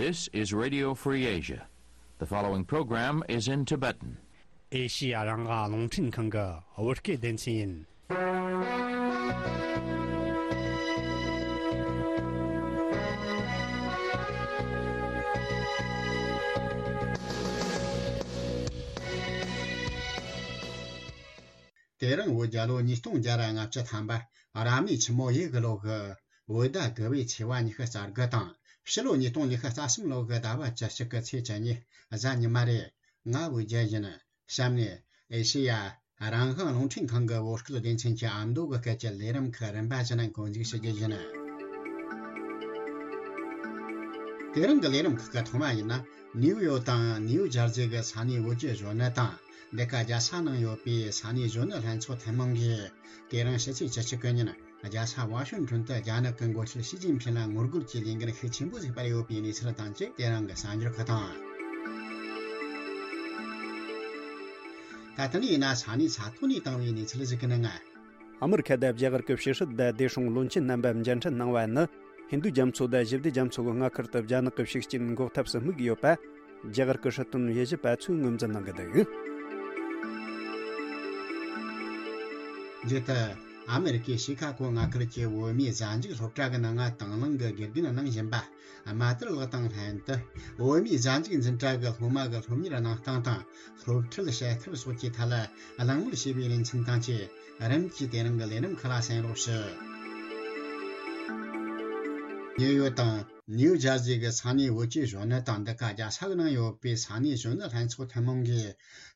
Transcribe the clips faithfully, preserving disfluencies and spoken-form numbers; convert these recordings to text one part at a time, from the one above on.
This is Radio Free Asia. The following program is in Tibetan. ཨེ་ཤི་ཡ་རང་དབང་རླུང་འཕྲིན་ཁང་གི་བོད་སྐད་སྡེ་ཚན་ཡིན། དེ་རིང་བོད་རྒྱལ་ལོ་ཉིས་སྟོང་བརྒྱ་ར་ལྔ་བཅུ་ཐམ་པ་རབ་གནས་ཆུ་མོ་ཡོས་གི་ལོ་གི་བོད་ཟླ་དགུ་པའི་ཚེས་པ་ཉི་ཤུ་རྩ་དགུ་དང་ཕྱི་ལོ་ཉིས་སྟོང་ཉི་ཤུ་རྩ་གསུམ་ལོ་གི་ཟླ་བ་བཅུ་གཅིག་གི་ཚེས་བཅུ་གཉིས་གཟའ་ཉི་མ་རེད། ང་བོད་རྒྱལ་ཡིན། གཤམ་ནས་ཨེ་ཤེ་ཡ་རང་དབང་རླུང་འཕྲིན་ཁང་གི་བོད་སྐད་སྡེ་ཚན་གྱི་ཨ་མདོ་གི་སྐད་ཀྱི་ལས་རིམ་ཁག་རིམ་པ་བཞིན་འགོ་འཛུགས་ཞུ་རྒྱུ་ཡིན། དེ་རིང་གི་ལས་རིམ་ཁག་གི་ཐོག་མ་ཡིན་ན། ནིའུ་ཡོག་དང་ནིའུ་ཇར་ཟི་གི་ས་གནས་བོད་ཀྱི་གཞོན་ནུ་དང་འདི་ག་རྒྱལ་ས་ནང་ཡོད་པའི་ས་གནས་གཞོན་ནུ་ལྷན་ཚོགས་ཐུན་མོང་གིས་དེ་རིང་ཕྱི་ཚེས་བཅུ་གཅིག་གི་ཉིན་རྒྱལ་ས་ཝ་ཤིང་ཊོན་དུ་རྒྱ་ནག་གི་འགོ་ཁྲིད་ཞི་ཅིན་ཕིན་ལ་ངོ་རྒོལ་གྱི་ལས་འགུལ་ཤུགས་ཆེན་པོ་ཞིག་སྤེལ་ཡོད་པའི་གནས་ཚུལ་དང་བཅས་དེ་རིང་གི་གསར་འགྱུར་ཁག་དང་། ད་ལྟ་ནས་ཡིན་ན་ས་གནས་ས་ཐོག་ནས་བཏང་བའི་གནས་ཚུལ་ཞིག་གི་ནང་། ཨ་མི་རི་ཁ་དང་རྒྱ་གར་གྱི་ཕྱི་སྲིད་དང་བདེ་སྲུང་བློན་ཆེན་རྣམ་པ་མཇལ་འཕྲད་གནང་བ་ནི། ཧིན་རྡུ་རྒྱ་མཚོ་དང་ཞི་བདེ་རྒྱ་མཚོ་གི་མངའ་ཁུལ་དུ་རྒྱ་ནག་གི་ཤུགས་རྐྱེན་འགོག་ཐབས་སུ་དམིགས་ཡོད་པ། རྒྱ་གར་གྱི་སྲིད་དོན་དབྱེ་ཞིབ་པ་ཚོས་ངོས་འཛིན་གནང་གི་འདུག། འདི་ལྟར། ཨ་མི་རི་ཀའི་ཤི་ཁ་གོ་མངའ་ཁུལ་གྱི་བོད་མིའི་གཟའ་མཇུག་སློབ་གྲྭ་གི་ནང་ང་དང་བླངས་ཀྱི་དགེ་རྒན་གནང་བཞིན་པ། རྨ་དར་ལགས་དང་ལྷན་དུ། བོད་མིའི་གཟའ་མཇུག་འཛིན་གྲྭ་གི་སློབ་མ་གི་སློབ་གཉེར་གནང་སྟངས་དང་། སློབ་ཁྲིད་བྱེད་ཐབས་སོགས་ཀྱི་ཐད་ལ་གླེང་མོལ་བྱས་པའི་ལེ་ཚན་དང་བཅས། རིམ་གྱིས་དེ་རིང་གི་ལས་རིམ་ཁག་ལ་གསན་རོགས་ཞུ། ནིའུ་ཡོག་དང་ནིའུ་ཇར་ཟི་གི་ས་གནས་བོད་ཀྱི་གཞོན་ནུ་དང་འདི་ག་རྒྱལ་ས་གི་ནང་ཡོད་པའི་ས་གནས་གཞོན་ནུ་ལྷན་ཚོགས་ཐུན་མོང་གིས་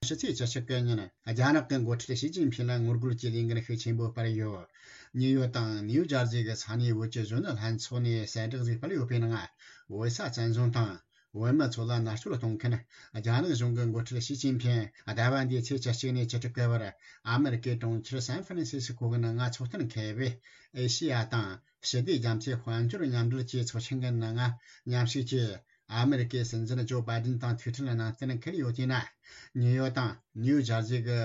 ཕྱི་ཚེས་བཅུ་གཅིག་གི་ཉིན་རྒྱ་ནག་གི་འགོ་ཁྲིད་ཞི་ཅིན་ཕིན་ལ་ངོ་རྒོལ་གྱི་ལས་འགུལ་ཤུགས་ཆེན་པོ་སྤེལ་ཡོད། ནིའུ་ཡོག་དང་ནིའུ་ཇར་ཟི་གི་ས་གནས་བོད་ཀྱི་གཞོན་ནུ་ལྷན་ཚོགས་ནས་གསལ་བསྒྲགས་ཤིག་སྤེལ་ཡོད་པའི་ནང་། བོད་ས་བཙན་བཟུང་དང་། བོད་མི་ཚོ་ལ་མནར་གཅོད་གཏོང་མཁན་རྒྱ་ནག་གཞུང་གི་འགོ་ཁྲིད་ཞི་ཅིན་ཕིན་ཟླ་བ་འདིའི་ཚེས་བཅུ་གཅིག་ནས་བཅུ་དྲུག་གི་བར་ཨ་མི་རི་ཀའི་གྲོང་ཁྱེར་སན་ཧྥ་རན་སི་སི་ཁོ་གི་ནང་ང་ཚོགས་གཏན་འཁེལ་བའི་ཨེ་ཤེ་ཡ་དང་ཞི་བདེ་རྒྱ་མཚོའི་དཔལ་འབྱོར་མཉམ་འབྲེལ་གྱི་ཚོགས་ཆེན་གྱི་ནང་ང་མཉམ་ཞུགས་ཀྱིས། ཨ་མི་རི་ཀའི་སྲིད་འཛིན་ཇོ་བྷའི་ཌེན་དང་ཐུག་འཕྲད་གནང་གཏན་འཁེལ་ཡོད་དེ་ན། ནིའུ་ཡོག་དང་ནིའུ་ཇར་ཟི་གི་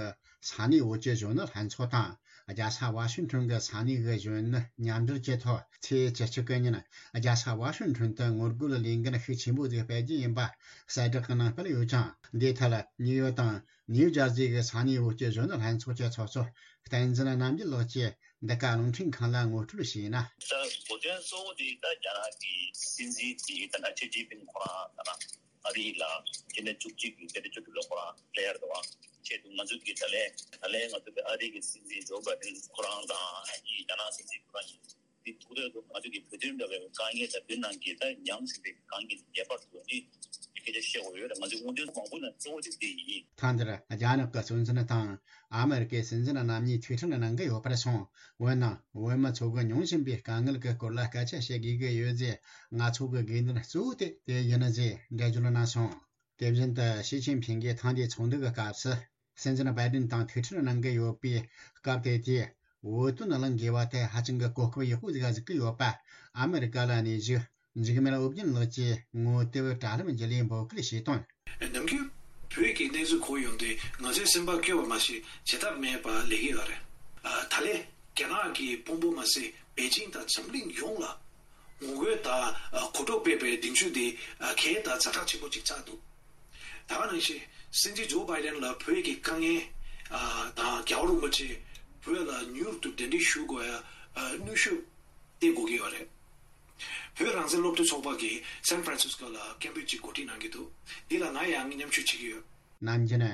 ས་གནས་བོད་ཀྱི་གཞོན་ནུ་ལྷན་ཚོགས་དང་། རྒྱལ་ས་ཝ་ཤིང་ཊོན་གྱི་ས་གནས་ཀྱི་གཞོན་ནུ་མཉམ་འབྲེལ་གྱི་ཐོག་ཚེས་བཅུ་གཅིག་གི་ཉིན་རྒྱལ་ས་ཝ་ཤིང་ཊོན་དུ་ངོ་རྒོལ་ལས་འགུལ་ཤུགས་ཆེན་པོ་ཞིག་སྤེལ་རྒྱུ་ཡིན་པ་གསལ་བསྒྲགས་ཀྱི་ནང་སྤེལ་ཡོད་ཀྱང་། འདིའི་ཐད་ནིའུ་ཡོག་དང་ནིའུ་ཇར་ཟི་གི་ས་གནས་བོད་ཀྱི་གཞོན་ནུ་ལྷན་ཚོགས་ཀྱི་ཚོགས་གཙོ་བསྟན་འཛིན་རྣམ་རྒྱལ་ལགས་ཀྱིས། འདི་ག་རླུང་འཕྲིན་ཁང་ལ་ངོ་སྤྲོད་བྱས་ན། ད་གོ་དོན་གཙོ་བོ་དེ་ད་རྒྱ་ནག་གི་སྲིད་འཛིན་དེ་ད་ལྟ་ཞི་ཅིན་ཕིན་ཁོ་རང་ད་ལྟ་ཨ་རི་ལ་སྤྱི་ཟླ་བཅུ་གཅིག་གི་ཚེས་བཅུ་དྲུག་ལ་ཁོ་རང་སླེབས་ཡར་འདུག་བ། ཆེད་དུ་ང་ཚོ་གི་ད་ལན་ད་ལན་ང་ཚོ་གི་ཨ་རི་གི་སྲིད་འཛིན་ཇོ་བྷའི་ཌེན་ཁོ་རང་དང་ཨ་ནི་རྒྱ་ནག་སྲིད་འཛིན་ཁོ་རང་གཉིས་དེ་ཐུག་འདོད་འདུག་ང་ཚོ་གི་བོད་དོན་འདྲ་བའི་དཀའ་ངལ་དང་བོད་ནང་གི་ད་ཉམས་ཟིན་པའི་དཀའ་ངལ་ངེས་པར་དུ་ནི་སྐད་ཆ་བཤད་དགོས་ཡོད་རེད། ང་ཚོའི་སྔོན་ཐོན་མང་པོ་ནང་གཙོ་བོ་གཅིག་དེ་ཡིན། ཐེངས་འདིར་རྒྱ་ནག་གི་གཙོ་འཛིན་དང་། ཨ་མི་རི་ཀའི་སྲིད་འཛིན་རྣམ་གཉིས་ཐུག་འཕྲད་གནང་གི་ཡོད་པར་སོང་། འོན་ནང་བོད་མི་ཚོ་གི་མྱོང་བཞིན་པའི་དཀའ་ངལ་གྱི་སྐོར་ལ་སྐད་ཆ་བཤད་དགོས་ཀྱི་ཡོད་ཅེས་ང་ཚོ་གི་དགོས་འདུན་གཙོ་བོ་དེ་དེ་ཡིན་ཟེར་འགྲེལ་བརྗོད་གནང་སོང་། དེ་བཞིན་དུ་ཞི་ཅིན་ཕིང་གིས་ཐེངས་འདིའི་ཚོགས་འདུ་གི་སྐབས་སུ་སྲིད་འཛིན་བྷའི་ཌེན་དང་ཐུག་འཕྲད་གནང་གི་ཡོད་པའི་སྐབས་དེ་དེས་བོད་དོན་གླེང་དགོས་པ་དེ་ཧ་ཅང་གི་གོ་སྐབས་ཡག་པོ་ཟིག་གཟིགས་ཀྱི་ཡོད་པ་ཨ་མི་རི་ཀ་ལ་གནས་བཞུགས། འཇིགས་མེད་ཨོ་རྒྱན་ལགས་ཀྱིས་ངོ་དེབ་དྲ་ལམ་བརྒྱུད་ལས་འབོད་སྐུལ་བྱས་དོན། ནམ་རྒྱུན་བོད་ཀྱི་གནས་ཚུལ་གོ་ཡོང་དུས་ང་ཚོའི་སེམས་པ་སྐྱོ་བ་མ་ཟད་བྱེད་ཐབས་མེད་པ་ལས་ཀྱི་ཡོད་རེད། ཨ། ད་ལན་རྒྱ་ནག་གི་དཔོན་པོ་མ་ཟད་པེ་ཅིང་དང་འཛམ་གླིང་ཡོངས་ལ་ངོ་རྒོལ་དང་གོ་རྟོགས་སྤེལ་བའི་གདེང་ཚོད་དེ་གལ་དང་ཛ་དྲག་ཆེན་པོ་ཅིག་ཆགས་འདུག་ད་ག་ནང་བཞིན་སྲིད་འཛིན་ཇོ་བྷའི་ཌེན་ལ་བོད་ཀྱི་དཀའ་ངལ་དང་རྒྱལ་བ་རིན་པོ་ཆེ་བོད་ལ་མྱུར་དུ་གདན་འདྲེན་ཞུ་དགོས་ཡ་གནོན་ཤུགས་སྟེར་དགོས་ཀྱི་ཡོད་རེད། བོད་རང་བཙན་སློབ་ཕྲུག་ཚོགས་པ་གིས་སན་ཧྥ་རན་སིས་ཀོ་ལ་སྐད་འབོད་ཅིག་གོ་སྒྲིག་གནང་གི་འདུག་འདི་ལ་ང་ཡང་མཉམ་ཞུགས་བྱེད་ཀྱི་ཡོད། ནམ་རྒྱུན་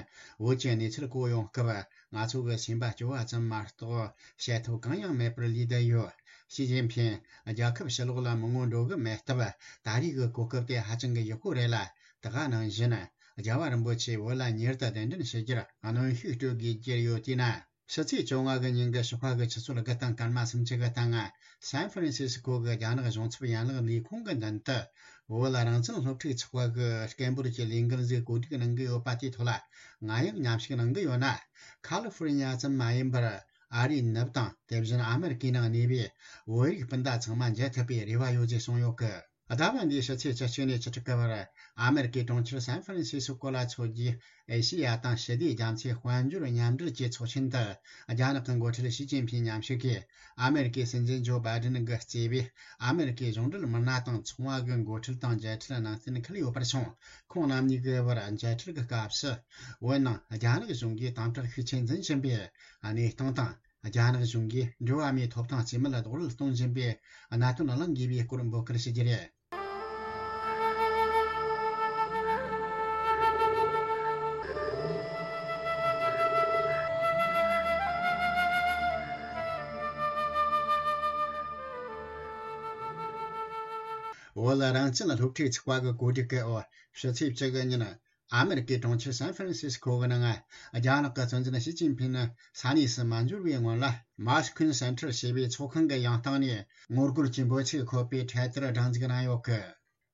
བོད་ཀྱི་གནས་ཚུལ་གོ་ཡོང་སྐབས་ང་ཚོ་གི་སེམས་པ་སྐྱོ་བ་ཙམ་མ་གཏོགས་བཤད་ཐབས་གང་ཡང་མེད་པར་ལུས་བསྡད་ཡོད། ཞི་ཅིན་ཕིང་རྒྱལ་ཁབ་ཕྱི་ལོགས་ལ་མི་ངོ་འགྲོ་གི་མེད་སྟབས་ད་རེས་ཀྱི་གོ་སྐབས་དེ་ཧ་ཅང་གི་ཡག་པོ་རེད་ལ། ད་ག་ནང་བཞིན་རྒྱལ་བ་རིན་པོ་ཆེ་བོད་ལ་མྱུར་དུ་གདན་འདྲེན་ཞུ་རྒྱུར་གནོན་ཤུགས་སྤྲོད་དགོས་ཀྱི་ཡོད་དུས་ན། ཕྱི་ཚེས་བཅོ་ལྔ་གི་ཉིན་གྱི་ཞོགས་ཁ་གི་ཆུ་ཚོད་དགུ་དང་སྐར་མ་སུམ་ཅུ་གི་སྟེང་ང་སན་ཧྥ་རན་སི་སི་ཀོ་གི་རྒྱ་ནག་གཞུང་ཚབ་ཡན་ལག་ལས་ཁུངས་ཀྱི་མདུན་དུ་བོད་ལ་རང་བཙན་སློབ་ཕྲུག་ཚོགས་པ་གི་སྐད་འབོད་ཀྱི་ལས་འགུལ་ཞིག་གོ་སྒྲིག་གནང་གི་ཡོད་པ་དེའི་ཐོག་ལ་ང་ཡང་མཉམ་ཞུགས་གནང་གི་ཡོད་ན། ཁ་ལི་ཧྥོ་རི་ཉ་ཙམ་མ་ཡིན་པར་ཨ་རིའི་ནུབ་དང་དེ་བཞིན་ཨ་མེ་རི་ཀའི་ནང་གནས་པའི་བོད་རིགས་སྤུན་ཟླ་ཚང་མ་མཇལ་ཐུབ་པའི་རེ་བ་ཡོད་ཅེས་གསུངས་ཡོད་གི། ཟླ་བ་འདིའི་ཕྱི་ཚེས་བཅུ་གཅིག་ནས་བཅུ་དྲུག་གི་བར་ཨ་མེ་རི་ཀའི་གྲོང་ཁྱེར་སན་ཧྥ་རན་སི་སི་ཀོ་ལ་འཚོགས་རྒྱུའི་ཨེ་ཤེ་ཡ་དང་ཞི་བདེའི་རྒྱ་མཚོའི་དཔལ་འབྱོར་མཉམ་འབྲེལ་གྱི་ཚོགས་ཆེན་དུ་རྒྱ་ནག་གི་འགོ་ཁྲིད་ཞི་ཅིན་ཕིང་མཉམ་ཞུགས་ཀྱིས་ཨ་མེ་རི་ཀའི་སྲིད་འཛིན་ཇོ་བྷའི་ཌེན་གྱིས་གཙོས་པའི་ཨ་མེ་རི་ཀའི་གཞུང་འབྲེལ་མི་སྣ་དང་ཚོང་བ་གི་འགོ་ཁྲིད་དང་མཇལ་འཕྲད་གནང་གཏན་འཁེལ་ཡོད་པར་སོང་། ཁོང་རྣམ་གཉིས་ཀྱི་བར་མཇལ་འཕྲད་ཀྱི་སྐབས་སུ། བོད་ནང་རྒྱ་ནག་གཞུང་གིས་དམ་དྲག་ཤུགས་ཆེ་འཛིན་བཞིན་པའི་གནས་སྟངས་དང་། རྒྱ་ནག་གཞུང་གིས་འགྲོ་བ་མིའི་ཐོབ་ཐང་རྩིས་མེད་ལ་རྡོག་རོལ་གཏོང་བཞིན་པའི་གནད་དོན་གླེང་དགོས་པའི་སྐོར་འབོད་སྐུལ་ཞུ་རྒྱུ་རེད། བོད་རང་བཙན་སློབ་ཕྲུག་ཚོགས་པ་གི་གོ་སྒྲིག་གི་འོག་ཕྱི་ཚེས་བཅུ་དགུ་ཉིན། ཨ་མེ་རི་ཀའི་གྲོང་ཁྱེར་སན་ཧྥ་རན་སིས་ཀོ་གི་ནང་། རྒྱ་ནག་གི་སྲིད་འཛིན་ཞི་ཅིན་ཕིང་ནི་ས་གནས་སུ་མ་འབྱོར་བའི་སྔོན་ལ། མོ་སི་ཁོན་སེན་ཊར་ཞེས་པའི་ཚོགས་ཁང་གི་ཡང་སྟེང་ནས་ངོ་རྒོལ་གྱི་འབོད་ཚིག་འཁོད་པའི་འཕྲེད་དར་སྒྲེང་འཛུགས་གནང་ཡོད་གི།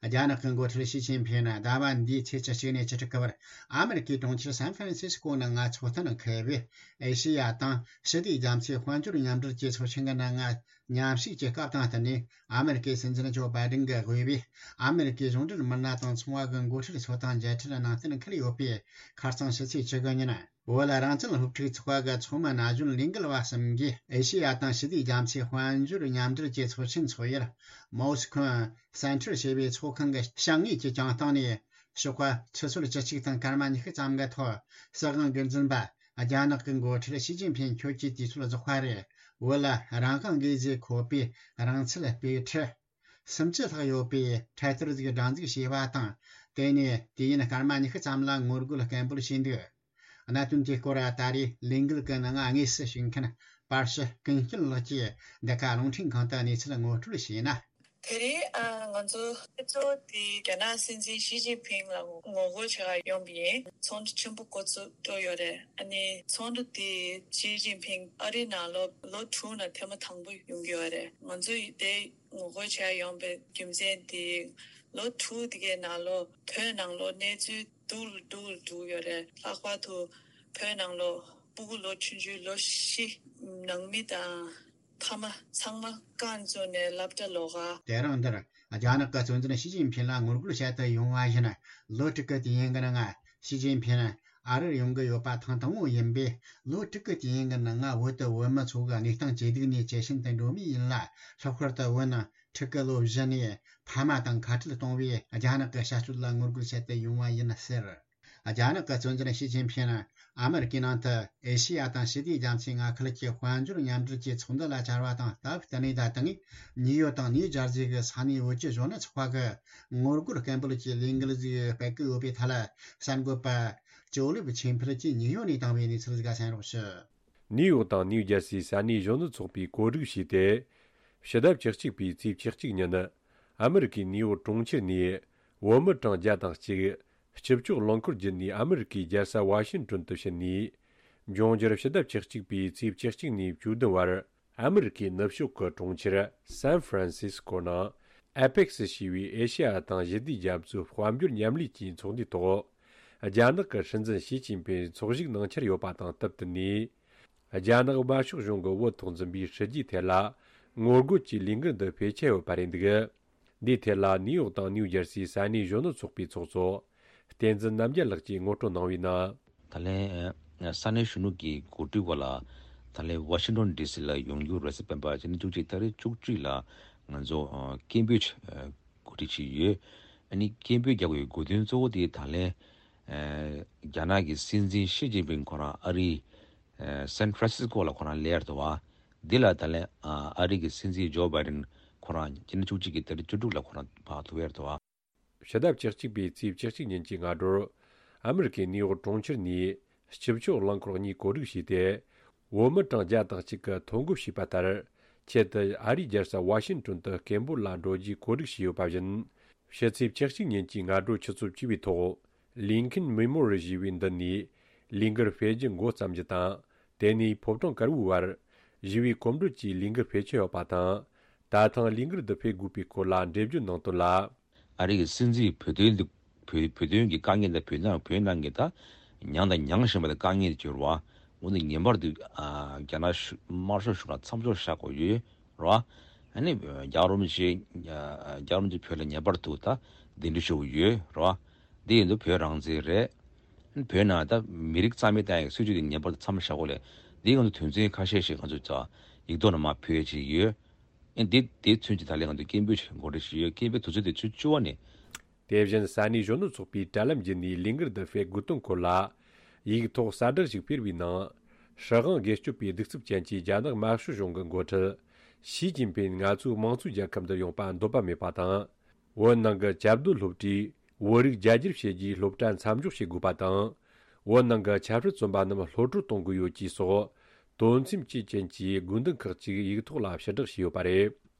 རྒྱ་ནག་གི་འགོ་ཁྲིད་ཞི་ཅིན་ཕིང་ནི་ཟླ་བ་འདིའི་ཚེས་བཅུ་གཅིག་ནས་བཅུ་དྲུག་གི་བར་ཨ་མེ་རི་ཀའི་གྲོང་ཁྱེར་སན་ཧྥ་རན་སིས་ཀོ་ནང་ང་ཚོགས་གཏན་འཁེལ་བའི་ཨེ་ཤེ་ཡ་དང་ཞི་བདེའི་རྒྱ་མཚོའི་དཔལ་འབྱོར་མཉམ་འབྲེལ་གྱི་ཚོགས་ཆེན་གྱི་ནང་ང་མཉམ་ཞུགས་ཀྱི་སྐབས་དང་བསྟུན་ནས། ཨ་མེ་རི་ཀའི་སྲིད་འཛིན་ཇོ་བྷའི་ཌེན་གྱིས་དབུས་པའི་ཨ་མེ་རི་ཀའི་གཞུང་འབྲེལ་མི་སྣ་དང་ཚོང་བ་གི་འགོ་ཁྲིད་ཚོ་དང་མཇལ་འཕྲད་གནང་གཏན་འཁེལ་ཡོད་པས། ཁ་རྩང་ཕྱི་ཚེས་བཅུ་དགུ་ཉིན་བོད་རང་བཙན་སློབ་ཕྲུག་ཚོགས་པ་གི་ཚོགས་མི་ན་གཞོན་ལས་འགུལ་བ་གསུམ་གྱིས་ཨེ་ཤེ་ཡ་དང་ཞི་བདེའི་རྒྱ་མཚོའི་དཔལ་འབྱོར་མཉམ་འབྲེལ་གྱི་ཚོགས་ཆེན་འཚོགས་ཡུལ་མོ་སི་ཁོན་སེན་ཊར་ཞེས་པའི་ཚོགས་ཁང་གི་བཤམས་གཉིས་ཀྱི་གྱང་སྟེང་ནས། ཞོགས་པ་ཆུ་ཚོད་བཅུ་གཅིག་དང་སྐར་མ་ཉི་ཤུ་ཙམ་གྱི་ཐོག་སྲིད་དབང་སྒེར་འཛིན་པ་རྒྱ་ནག་གི་འགོ་ཁྲིད་ཞི་ཅིན་ཕིང་ཁྱོད་ཀྱིས་དུས་ཚོད་རྫོགས་པ་རེད། བོད་ལ་རང་དབང་དགོས་ཞེས་འཁོད་པའི་རང་བཙན་དཔེ་ཁྲིད་སུམ་ཅུ་ལྷག་ཡོད་པའི་འཕྲེད་དར་ཞིག་སྒྲེང་འཛུགས་བྱས་པ་དང་། དེ་ནས་དུས་ཡུན་སྐར་མ་ཉི་ཤུ་ཙམ་ལ་ངོ་རྒོལ་སྐད་འབོད་བྱས་འདུག་གནད་དོན་དེའི་སྐོར་ད་རེས་ལས་འགུལ་གྱི་ནང་དངོས་སུ་ཞུགས་མཁན་པར་ཞི་ཀུན་སྐྱིད་ལགས་ཀྱིས་འདི་ག་རླུང་འཕྲིན་ཁང་དུ་གནས་ཚུལ་ངོ་སྤྲོད་བྱས་ན། དེ་རིང་ཨ་ང་ཚོ་སྤྱི་ཚོགས་དེ་རྒྱ་ནག་སྲིད་འཛིན་ཞི་ཅིན་ཕིང་ལ་ངོ་རྒོལ་བྱེད་ག་ཡོང་པ་ཡིན། ཚོགས་འདུ་ཆེན་པོ་འགོ་ཚུགས་འགྲོ་ཡོད་རེད། ཨ་ནི་ཚོགས་འདུ་དེ་ཞི་ཅིན་ཕིང་ཨ་རི་ནང་ལོ་ལོ་དྲུག་ནང་ཐེངས་མ་དང་པོ་ཡོང་གི་ཡོད་རེད། ང་ཚོ་དེ་ངོ་རྒོལ་བྱེད་ག་ཡོང་པའི་རྒྱུ་མཚན་དེ་ལོ་དྲུག་དེ་གའི་ནང་ལོ་བོད་ནང་ལོ་གནས་ཚུལ་སྡུག་ལ་སྡུག་ལ་འགྲོ་ཡོད་རེད། ལྷག་པར་དུ་བོད་ནང་ལོ་སྤུ་གུ་ལོ་ཆུང་ཆུང་ལོ་བཞི། ནང་མི་དང་ཕ་མ་ཚང་མ་རྐང་བཙུགས་ནས་སློབ་གྲྭ་ལོག་ག་དེ་རིང་འདིར་རྒྱ་ནག་གི་གཙོ་འཛིན་ཞི་ཅིན་ཕིང་ལ་ངོ་རྒོལ་བྱེད་དུ་ཡོང་བ་ཡིན། ལོ་དྲུག་གི་དུས་ཡུན་གྱི་ནང་ཞི་ཅིན་ཕིང་ཨ་རིར་ཡོང་གི་ཡོད་པ་ཐེངས་དང་པོ་ཡིན་པས། ལོ་དྲུག་གི་དུས་ཡུན་གྱི་ནང་བོད་དུ་བོད་མི་ཚོ་གི་གནས་སྟངས་ཇེ་སྡུག་ནས་ཇེ་ཞན་དུ་འགྲོ་མུས་ཡིན་ལ། ལྷག་པར་དུ་བོད་ནང་ཕྲུ་གུ་ལོ་བཞི་ནས་ཕ་མ་དང་ཁ་བྲལ་གཏོང་བའི་རྒྱ་ནག་གི་བྱ་སྤྱོད་ལ་ངོ་རྒོལ་བྱེད་དུ་ཡོང་བ་ཡིན་ཟེར། རྒྱ་ནག་གི་གཙོ་འཛིན་ཞི་ཅིན་ཕིང་ཨ་མེ་རི་ཀའི་ནང་དུ་ཨེ་ཤེ་ཡ་དང་ཞི་བདེའི་རྒྱ་མཚོའི་མངའ་ཁུལ་གྱི་དཔལ་འབྱོར་མཉམ་འབྲེལ་གྱི་ཚོགས་འདུ་ལ་བཅར་བ་དང་སྟབས་བསྟུན་ནས། ད་ཐེངས་ནིའུ་ཡོག་དང་ནིའུ་ཇར་སི་གི་ས་གནས་བོད་ཀྱི་གཞོན་ནུ་ཚོགས་པ་གི་ངོ་རྒོལ་སྐད་འབོད་ཀྱི་ལས་འགུལ་ཞིག་སྤེལ་གྱི་ཡོད་པའི་ཐད་ལ། གསར་འགོད་པ་ཇོ་ལེབ་ཆོས་འཕེལ་གྱིས་ནིའུ་ཡོག་ནས་བཏང་བའི་གནས་ཚུལ་ཞིག་གསན་རོགས་ཞུ། ནིའུ་ཡོག་དང་ནིའུ་ཇར་སིའི་ས་གནས་གཞོན་ནུ་ཚོགས་པས་གོ་སྒྲིག་བྱས་ཏེ། ཕྱི་ཟླ་བཅུ་གཅིག་པའི་ཚེས་བཅུ་གཅིག་ཉིན། ཨ་མེ་རི་ཀའི་ནིའུ་ཡོག་གྲོང་ཁྱེར་ནས་བོད་མི་གྲངས་བརྒྱ་དང་གཅིག་སྤྱི་སྤྱོད་རླངས་འཁོར་བརྒྱུད་ནས་ཨ་མེ་རི་ཀའི་རྒྱལ་ས་ཝ་ཤིང་ཏོན་དུ་ཕྱིན་ནས། འབྱུང་འགྱུར་ཕྱི་ཟླ་བཅུ་གཅིག་པའི་ཚེས་བཅུ་གཅིག་ནས་བཅུ་བདུན་བར་ཨ་མེ་རི་ཀའི་ནུབ་ཕྱོགས་ཀྱི་གྲོང་ཁྱེར་སན་ཧྥ་རན་སིས་ཀོ་ནང་ཨེ་པེག་སི་ཞེས་པའི་ཨེ་ཤེ་ཡ་དང་ཞི་བདེའི་རྒྱ་མཚོའི་དཔལ་འབྱོར་མཉམ་ལས་ཀྱི་ཚོགས་འདུའི་ཐོག་རྒྱ་ནག་གི་སྲིད་འཛིན་ཞི་ཅིན་ཕིང་ཚོགས་ཞུགས་གནང་འཆར་ཡོད་པ་དང་སྟབས་བསྟུན་ནས། རྒྱ་ནག་དམར་ཤོག་གཞུང་གི་བོད་ཐོག་འཛིན་པའི་སྲིད་ཇུས་ཐད་ལ་ངོ་རྒོལ་གྱི་ལས་འགུལ་འདི་སྤེལ་འཆར་ཡོད་པ་རེད་འདུག་འདིའི་ཐད་ལ་ནིའུ་ཡོག་དང་ནིའུ་ཇར་སིའི་ས་གནས་གཞོན་ནུ་ཚོགས་པའི་ཚོགས་གཙོ་བསྟན་འཛིན་རྣམ་རྒྱལ་ལགས་ཀྱིས་ངོ་སྤྲོད་གནང་བའི་ནང་། ད་ལན་ས་གནས་གཞོན་ནུ་གི་གོ་སྒྲིག་འོག་ལ་ད་ལན་ཝ་ཤིང་ཏོན་ཌི་སི་ལ་ཡོང་རྒྱུ་རེད་ཟེར། སྤེན་པ་སྤྱི་ཟླ་བཅུ་གཅིག་ཏ་རིག་བཅུ་གཅིག་ལ་ང་ཚོ་སྐད་འབོད་གོ་སྒྲིག་བྱས་ཡོད། ཨ་ནི་སྐད་འབོད་རྒྱག་དགོས་ཡོད་དགོས་དོན་གཙོ་བོ་དེ་ད་ལན་རྒྱ་ནག་གི་སྲིད་འཛིན་ཞི་ཅིན་ཕིང་ཁོ་རང་ཨ་རིའི་སན་ཧྥ་རན་སིས་ཀོ་ལ་ཁོ་རང་སླེབས་ཡ་རེད་བ། འདི་ལ་ད་ལན་ཨ་རི་གི་སྲིད་འཛིན་ཇོ་བྷའི་ཌེན་ཁོ་རང་སྤྱི་ཟླ་བཅུ་གཅིག་གི་ཏ་རིག་བཅུ་དྲུག་ལ་ཁོ་རང་ཕར་ཐུག་ཡ་རེད་བ། ཕྱི་ཟླ་བཅུ་གཅིག་པའི་ཚེས་བཅུ་གཅིག་ཉིན་གྱི་སྔ་དྲོར་ཨ་མེ་རི་ཀའི་ནིའུ་ཡོག་གྲོང་ཁྱེར་ནས་སྤྱི་སྤྱོད་རླངས་འཁོར་གཉིས་གོ་སྒྲིག་བྱས་ཏེ། བོད་མི་གྲངས་བརྒྱ་དང་གཅིག་གིས་ཐོ་འགོད་བྱས་པ་ལྟར། ཆེད་དུ་ཨ་རིའི་རྒྱལ་ས་ཝ་ཤིང་ཏོན་དུ་སྐད་འབོད་ལ་འགྲོ་རྒྱུའི་གོ་སྒྲིག་བྱས་ཡོད་པ་བཞིན། ཕྱི་ཚེས་བཅུ་གཅིག་ཉིན་གྱི་སྔ་དྲོ་ཆུ་ཚོད་བཅུ་པའི་ཐོག་ལིན་ཁིན་མེ་མོ་རི་ཡལ་ཞེས་པའི་འདི་ནས་ལས་འགུལ་སྤེལ་རྒྱུ་འགོ་བརྩམས་རྒྱུ་དང་། དེ་ནས་ཕོ་བྲང་དཀར་པོའི་བར་ཞི་བའི་གོམ་བགྲོད་ཀྱི་ལས་འགུལ་སྤེལ་འཆར་ཡོད་པ་དང་། ད་ཐེངས་ལས་འགུལ་འདི་སྤེལ་དགོས་པའི་སྐོར་ལ་འགྲེལ་བརྗོད་གནང་དོན་ལ། ཨ་རི་གི་སྲིད་འཛིན་བོད་དོན་འདི་བོད་བོད་དོན་གྱི་དཀའ་ངལ་དང་། བོད་ནང་བོད་ནང་གི་ད་མྱངས་དང་མྱང་བཞིན་པ་དང་དཀའ་ངལ་དེ་ཚོ་རེད་བ། འོ་ན་ངེས་པར་དུ་ཨ་རྒྱ་ནག་གཞུང་དམར་ཤོག་གཞུང་ལ་མཚམས་འཇོག་བྱ་དགོས་ཡོད་རེད་བ། ཨ་ནི་རྒྱལ་བ་རིན་པོ་ཆེ་རྒྱལ་བ་རིན་པོ་ཆེ་བོད་ལ་ངེས་པར་དུ་ད་གདན་འདྲེན་ཞུ་གི་ཡོད་རེད་བ། འདི་ཡིན་དུས་བོད་རང་བཙན་རེད། བོད་ནང་ད་མི་རིགས་རྩ་མེད་བཏང་ཡག་སྲིད་ཇུས་དེ་ངེས་པར་དུ་མཚམས་བཞག་དགོས་ལས། འདིའི་ང་ཚོ་དོན་ཚན་ཁ་ཤས་ཤིག་ང་ཚོས་ད་ཡིག་ཐོག་ནས་མར་ཕུལ་ཡས་ཅིག་ཡོད། ཨེ་འདི་དེ་ཚུན་གྱི་ད་ལན་ང་ཚོ་སྐད་འབོད་ཅིག་འགོ་ཁྲིད་ཅིག་ཡོད། སྐད་འབོད་དུས་ཚོད་དེ་ཚོ་བཅུ་པ་ནས། དེ་བཞིན་ས་གནས་གཞོན་ནུ་ཚོགས་པའི་དྲ་ལམ་བརྒྱུད་ནས་ལས་འགུལ་འདི་སྤེལ་དགོས་དོན་སྐོར་ལ་ཡིག་ཐོག་གསལ་བསྒྲགས་ཤིག་སྤེལ་བའི་ནང་། སྲིད་དབང་སྒེར་གཅོད་པའི་གདུག་རྩུབ་ཅན་གྱི་རྒྱ་ནག་དམར་ཤོག་གཞུང་གི་འགོ་ཁྲིད་ཞི་ཅིན་ཕིན་ང་ཚོའི་དམངས་གཙོའི་རྒྱལ་ཁབ་འདིར་ཡོང་པ་འདོད་པ་མེད་པ་དང་། བོད་ནང་གི་བཅའ་སྡོད་སློབ་གྲྭས་བོད་རིགས་རྒྱ་སྒྱུར་བྱེད་རྒྱུའི་སློབ་གྲྭ་མཚམས་འཇོག་བྱེད་དགོས་པ་དང་། བོད་ནང་གི་ཆབ་སྲིད་བཙོན་པ་རྣམས་གློད་བཀྲོལ་གཏོང་དགོས་ཡོད་ཅེས་སོགས་དོན་ཚན་བཅུ་ཅན་གྱི་དགོས་འདུན་ཁག་ཅིག་ཡིག་ཐོག་ལ་ཕྱིར་བསྒྲགས་བྱས་ཡོད་པ་རེད།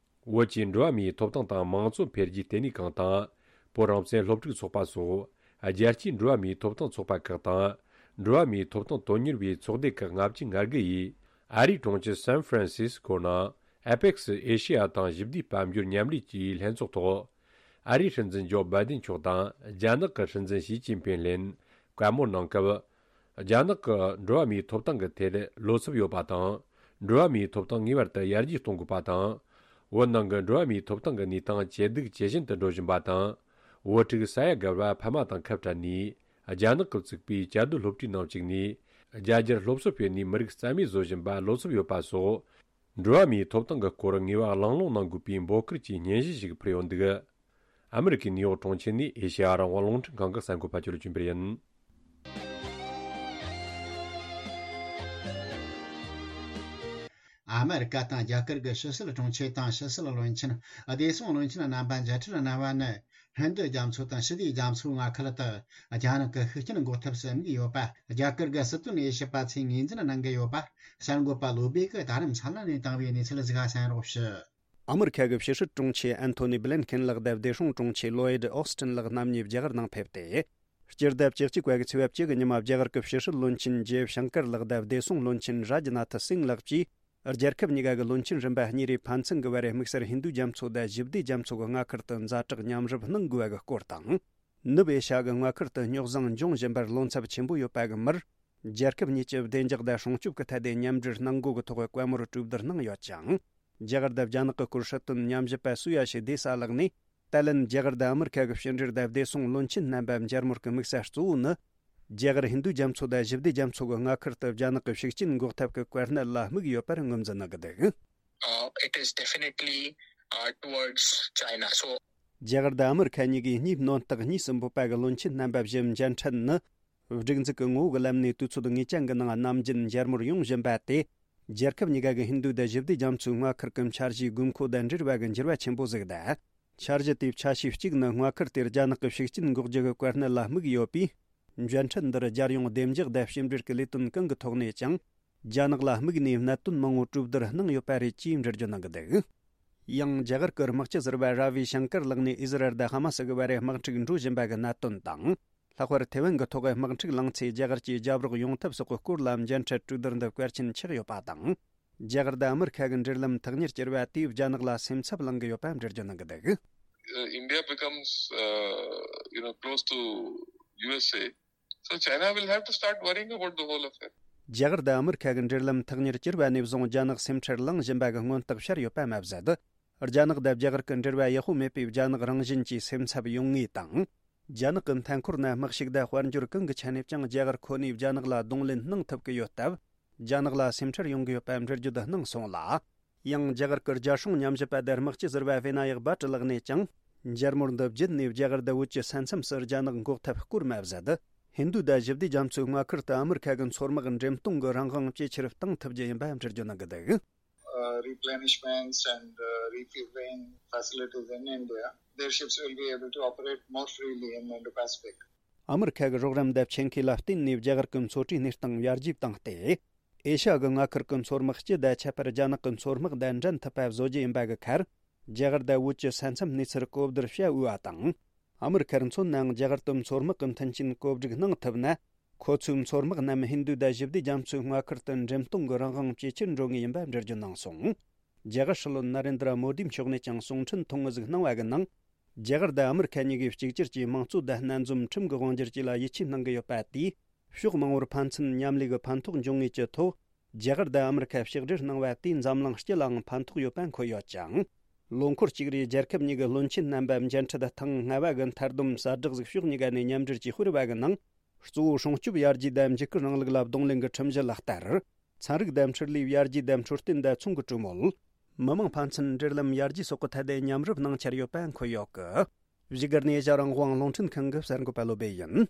བོད་ཀྱི་འགྲོ་བ་མིའི་ཐོབ་ཐང་དང་མང་གཙོ་འཕེལ་རྒྱས་ལྟེ་གནས་ཁང་དང་། བོད་རང་བཙན་སློབ་ཕྲུག་ཚོགས་པ་སོགས་རྒྱལ་སྤྱིའི་འགྲོ་བ་མིའི་ཐོབ་ཐང་ཚོགས་པ་ཁག་དང་། འགྲོ་བ་མིའི་ཐོབ་ཐང་དོན་གཉེར་བའི་ཚོགས་སྡེ་ཁག་ལྔ་བཅུ་ང་དགུ་ཡིས་ཨ་རིའི་གྲོང་ཁྱེར་སན་ཧྥ་རན་སིས་ཀོ་ནང་ཨེ་པེག་སི་ཨེ་ཤེ་ཡ་དང་ཞི་བདེའི་དཔལ་འབྱོར་མཉམ་ལས་ཀྱི་ལྷན་ཚོགས་ཐོག་ཨ་རིའི་སྲིད་འཛིན་ཇོ་བྷའི་ཌེན་མཆོག་དང་རྒྱ་ནག་གི་སྲིད་འཛིན་ཞི་ཅིན་ཕིན་ལྷན་བཀའ་མོལ་གནང་སྐབས། རྒྱ་ནག་གི་འགྲོ་བ་མིའི་ཐོབ་ཐང་གི་ཐད་བློ་འཚབ་ཡོད་པ་དང་། འགྲོ་བ་མིའི་ཐོབ་ཐང་ངེས་པར་དུ་ཡར་རྒྱས་གཏོང་དགོས་པ་དང་། བོད་ནང་གི་འགྲོ་བ་མིའི་ཐོབ་ཐང་གི་གནས་སྟངས་ཇེ་སྡུག་ཇེ་ཞན་དུ་འགྲོ་བཞིན་པ་དང་། བོད་ཕྲུག་ས་ཡ་དགའ་བ་ཕ་མ་དང་ཁ་བྲལ་ནས། རྒྱ་ནག་གིས་བཙུགས་པའི་བཅའ་སྡོད་སློབ་གྲྭའི་ནང་བཅུག་ནས། རྒྱ་སྒྱུར་སློབ་གསོ་སྤེལ་ནས་མི་རིགས་རྩ་མེད་བཟོ་བཞིན་པ་བློ་འཚབ་ཡོད་པ་སོགས། འགྲོ་བ་མིའི་ཐོབ་ཐང་གི་སྐོར་ངེས་པ་གླེང་སློང་གནང་དགོས་པའི་འབོད་སྐུལ་གྱི་སྙན་ཞུ་ཞིག་ཕུལ་ཡོད་འདུག་ཨ་མི་རི་ཀའི་ནིའུ་ཡོག་གྲོང་ཁྱེར་ནས་ཨེ་ཤེ་ཡ་རང་དབང་རླུང་འཕྲིན་ཁང་གི་གསར་འགོད་པ་ཅོ་ལི་ཅུན་པེར་ཡིན། ཨ་མི་རི་ཀ་དང་རྒྱ་གར་གྱི་ཕྱི་སྲིད་དྲུང་ཆེ་དང་ཕྱི་སྲིད་བློན་ཆེན། བདེ་སྲུང་བློན་ཆེན་རྣམ་པ་མཇལ་འཕྲད་གནང་བ་ནི། ཧིན་རྡུ་རྒྱ་མཚོ་དང་ཞི་བདེ་རྒྱ་མཚོའི་མངའ་ཁུལ་དུ་རྒྱ་ནག་གི་ཤུགས་རྐྱེན་འགོག་ཐབས་སུ་དམིགས་ཡོད་པ། རྒྱ་གར་གྱི་སྲིད་དོན་དབྱེ་ཞིབ་པ་ཚོས་ངོས་འཛིན་གནང་གི་ཡོད་པ། གསར་འགོད་པ་བློ་སྦེ་གིས་ད་རིང་འཚམས་ལན་ནས་བཏང་བའི་གནས་ཚུལ་ཞིག་གསན་རོགས་ཞུ། ཨ་མི་རི་ཁ་གི་ཕྱི་སྲིད་དྲུང་ཆེ་ཨན་ཐོ་ནི་བྷི་ལན་ཁེན་ལགས་དང་བདེ་སྲུང་དྲུང་ཆེ་ལོ་ཡིད་ཨོ་སི་ཊིན་ལགས་རྣམ་གཉིས་རྒྱ་གར་ནང་ཕེབས་ཏེ། སྤྱི་ཟླ་བཅུ་གཅིག་པ་གི་ཚེས་པ་བཅུ་གི་ཉི་མ་རྒྱ་གར་གྱི་ཕྱི་སྲིད་བློན་ཆེན་ཇེ་ཤང་ཀར་ལགས་དང་བདེ་སྲུང་བློན་ཆེན་རཱ་ཇི་ནཱ་ཐི་སིང་ལགས་ཀྱིས། རྒྱལ་ཁབ་གཉིས་ཀ་གི་བློན་ཆེན་རིམ་པ་གཉིས་རེ་ཕན་ཚུན་གྱི་བར་དམིགས་བསལ་ཧིན་རྡུ་རྒྱ་མཚོ་དང་ཞི་བདེ་རྒྱ་མཚོ་གི་མངའ་ཁུལ་དུ་ཛ་དྲག་མཉམ་རུབ་གནང་དགོས་པ་གི་སྐོར་དང་། ནུབ་ཨེ་ཤ་ཡ་གི་མངའ་ཁུལ་དུ་རྙོག་ཟིང་འབྱུང་བཞིན་པར་བློ་འཚབ་ཆེན་པོ་ཡོད་པ་གི་མིར། རྒྱལ་ཁབ་གཉིས་ཀྱི་བདེ་འཇགས་དང་སྲུང་སྐྱོབ་ཀྱི་ཐད་དེ་མཉམ་འབྲེལ་གནང་དགོས་ཀྱི་ཐོག་བཀའ་མོལ་གྲོས་བསྡུར་གནང་ཡོད་ཅིང་། རྒྱ་གར་དང་རྒྱ་ནག་གི་སྐོར་སྲིད་དོན་ཉམས་ཞིབ་པ་སུ་ཡ་ཤི་དེ་ས་ལགས་ནས། ཏཱ་ལན་རྒྱ་གར་དང་ཨ་མི་རི་ཁ་གི་ཕྱི་འབྲེལ་དང་བདེ་སྲུང་བློན་ཆེན་རྣམ་པ་མཇལ་མོལ་གྱི་དམིགས་ས་གཙོ་བོ་ནི། རྒྱ་གར་ཧིན་རྡུ་རྒྱ་མཚོ་དང་ཞི་བདེ་རྒྱ་མཚོ་གི་མངའ་ཁུལ་དུ་རྒྱ་ནག་གི་ཤུགས་རྐྱེན་འགོག་ཐབས་ཀྱི་གོ་གནས་ལ་དམིགས་ཡོད་པར་ངོས་འཛིན་གནང་གི་འདུག Uh, it is definitely, uh, towards China. So, རྒྱ་གར་དང་ཨ་མི་རི་ཁ་གཉིས་ཀས་གཉིས་སྣོན་རྟགས་གཉིས་སུ་འབོད་པ་གི་བློན་ཆེན་རྣམ་པ་བཞི་མཇལ་འཕྲད་ནི། སྒྲིག་འཛུགས་ཀྱི་ངོ་བོ་གི་ལམ་ནས་དུས་ཚོད་ངེས་ཅན་གྱི་ནང་ནམ་རྒྱུན་མཇལ་མོལ་ཡོང་བཞིན་པ་དེ། རྒྱལ་ཁབ་གཉིས་ཀ་གི་ཧིན་རྡུ་དང་ཞི་བདེ་རྒྱ་མཚོའི་མངའ་ཁུལ་གྱི་འཆར་གཞིའི་དགོས་མཁོ་དང་འབྲེལ་བ་གི་འགྱུར་བ་ཆེན་པོ་ཟིག་དང་། འཆར་གཞི་དེའི་ཆ་ཤས་གཅིག་ནི་མངའ་ཁུལ་དེར་རྒྱ་ནག་གི་ཤུགས་རྐྱེན་འགོག་རྒྱུ་གི་གོ་གནས་ལ་དམིགས་ཡོད་པས། མཇལ་འཕྲད་འདིར་རྒྱལ་ཡོངས་བདེ་འཇགས་དང་ཕྱི་འབྲེལ་གྱི་ལས་དོན་གང་གི་ཐོག་ནས་ཀྱང་། རྒྱ་ནག་ལ་དམིགས་ནས་གནད་དོན་མང་བོ་གྲོས་བསྡུར་གནང་ཡོད་པ་རེད་ཅེས་འགྲེལ་བརྗོད་གནང་གི་འདུག་ཡང་རྒྱ་གར་གྱི་དམག་སྤྱི་ཟུར་པ་ར་བི་ཤང་ཀར་ལགས་ནས་ཨི་ཟི་རལ་དང་ཧ་མ་སི་གི་བར་དམག་འཁྲུག་འགྲོ་བཞིན་པ་གི་གནད་དོན་དང་། ལྷག་པར་ཐེ་ཝན་གྱི་ཐོག་དམག་འཁྲུག་ལངས་ཚེ་རྒྱ་གར་གྱིས་རྒྱབ་རོགས་ཡོང་ཐབས་སོགས་ཀྱི་སྐོར་ལ་མཇལ་འཕྲད་གྲོས་བསྡུར་འདི་གལ་ཆེན་ཆགས་ཡོད་པ་དང་། རྒྱ་གར་དང་ཨ་མི་རི་ཁ་གི་འབྲེལ་ལམ་ཐག་ཉེར་གྱུར་བ་དེས་རྒྱ་ནག་ལ་སེམས་འཚབ་ལངས་ཀྱི་ཡོད་པ་འགྲེལ་བརྗོད་གནང་གི་འདུག Uh, India becomes, uh, you know, close to U S A. So China will have to start worrying about the whole affair. རྒྱ་གར་དང་ཨ་མི་རི་ཁ་གི་འབྲེལ་ལམ་ཐག་ཉེར་གྱུར་བ་ནས་བཟུང་རྒྱ་ནག་སེམས་ཁྲལ་ལངས་བཞིན་པ་གི་མངོན་རྟགས་ཤར་ཡོད་པ་མ་ཟད། རྒྱ་ནག་དང་རྒྱ་གར་གྱི་འབྲེལ་བ་ཡག་པོ་མེད་པས་རྒྱ་ནག་རང་བཞིན་གྱིས་སེམས་འཚབ་ཡོང་ངེས་དང་། རྒྱ་ནག་གི་མཐའ་འཁོར་ན་དམག་ཤུགས་དང་དཔལ་འབྱོར་གང་གི་ཆ་ནས་ཀྱང་རྒྱ་གར་ཁོ་ནས་རྒྱ་ནག་ལ་གདོང་ལེན་གནང་ཐུབ་ཀྱི་ཡོད་སྟབས། རྒྱ་ནག་ལ་སེམས་ཁྲལ་ཡོང་གི་ཡོད་པ་འགྲེལ་བརྗོད་གནང་སོང་ལ། ཡང་རྒྱ་གར་གྱི་རྒྱལ་སྲུང་ཉམས་ཞིབ་པ་དང་དམག་སྤྱི་ཟུར་པ་ཝི་ན་ཡག་བྷ་ཊ་ལགས་ནས་ཀྱང་། མཇལ་མོལ་འདི་བརྒྱུད་ནས་རྒྱ་གར་དང་བོད་ཀྱི་ས་མཚམས་སུ་རྒྱ་ནག་འགོག་ཐབས་སྐོར་མ་ཟད། ཧིན་རྡུ་དང་ཞི་བདེ་རྒྱ་མཚོའི་མངའ་ཁུལ་དུ་ཨ་མི་རི་ཁ་གི་མཚོ་དམག་འགྲེམས་གཏོང་གི་རང་དབང་ཇེ་ཆེར་གཏང་ཐུབ་རྒྱུ་ཡིན་པ་འགྲེལ་བརྗོད་གནང་གི་འདུག Uh, replenishments and, uh, refueling facilities in India, their ships will be able to operate more freely in the Indo-Pacific. ཨ་མི་རི་ཁ་གི་རོགས་རམ་དང་ཆེད་མཁས་ལ་བརྟེན་ནས་རྒྱ་གར་གྱི་མཚོ་གྲུའི་གནས་སྟངས་ཡར་རྒྱས་བཏང་སྟེ། ཨེ་ཤ་ཡ་གི་མངའ་ཁུལ་གྱི་མཚོ་དམག་སྤྱི་དང་ཁྱད་པར་རྒྱ་ནག་གི་མཚོ་དམག་དང་འགྲན་ཐུབ་པ་བཟོ་རྒྱུ་ཡིན་པ་གི་ཁར། རྒྱ་གར་དང་བོད་ཀྱི་ས་མཚམས་གནས་ཚུལ་གོ་བསྡུར་བྱ་འོས་པ་དང་། ཨ་མི་རི་ཁར་མཚོན་ནའང་རྒྱ་གར་དུ་མཚོ་དམག་གི་མཐུན་རྐྱེན་བཀོད་སྒྲིག་གནང་ཐུབ་ན། ཁོ་ཚོའི་མཚོ་དམག་རྣམས་ཧིན་རྡུ་དང་ཞི་བདེ་རྒྱ་མཚོའི་མངའ་ཁུལ་དུ་འགྲེམས་གཏོང་གི་རང་དབང་ཇེ་ཆེར་འགྲོ་ངེས་ཡིན་པ་འགྲེལ་བརྗོད་གནང་སོང་། རྒྱ་གར་སྲིད་བློན་ན་རེན་དྲ་མོ་དི་མཆོག་ནས་ཀྱང་གསུང་འཕྲིན་ཐུང་ངུ་ཟིག་གནང་བ་གི་ནང་། རྒྱ་གར་དང་ཨ་མི་རི་ཁ་གཉིས་ཀས་གཅིག་གྱུར་གྱི་དམངས་གཙོ་དང་སྣ་འཛོམས་ཁྲིམས་ཀྱི་དབང་སྒྱུར་བཅས་ལ་ཡིད་ཆེས་གནང་གི་ཡོད་པ་དེས། ཕྱོགས་མང་པོར་ཕན་ཚུན་མཉམ་ལས་ཀྱི་ཕན་ཐོགས་འབྱུང་ངེས་ཀྱི་ཐོག་རྒྱ་གར་དང་ཨ་མི་རི་ཁ་ཕྱག་སྦྲེལ་གནང་བ་དེས་འཛམ་གླིང་སྤྱི་ལའང་ཕན་ཐོགས་ཡོད་པ་འཁོད་ཡོད་ཅིང་། ལོ་འཁོར་གཅིག་རེའི་རྒྱལ་ཁབ་གཉིས་ཀྱི་བློན་ཆེན་རྣམ་པ་མཇལ་འཕྲད་ཐེངས་ལྔ་བ་གི་མཐར་བསྡོམས་གསལ་བསྒྲགས་ཤིག་ཕྱོགས་གཉིས་ཀ་ནས་མཉམ་འབྲེལ་གྱིས་སྤེལ་བ་གི་ནང་། གཙོ་བོ་སྲུང་སྐྱོབ་ཡར་རྒྱས་དང་འཇིགས་སྐུལ་རིང་ལུགས་ལ་གདོང་ལེན་གྱི་ཁྲིམས་གཞི་ལག་བསྟར། ཚན་རིག་དང་འཕྲུལ་ལས་ཡར་རྒྱས་དང་འཕྲོད་བསྟེན་དང་ཚོང་གི་གྲོས་མོལ། མི་དམངས་ཕན་ཚུན་འབྲེལ་ལམ་ཡར་རྒྱས་སོགས་ཀྱི་ཐད་དུ་མཉམ་རུབ་གནང་འཆར་ཡོད་པ་འཁོད་ཡོད་གི། བཞུགས་སྒར་ནས་ཨེ་ཤ་རང་དབང་རླུང་འཕྲིན་ཁང་གི་གསར་འགོད་པ་བློ་བྷེ་ཡིན།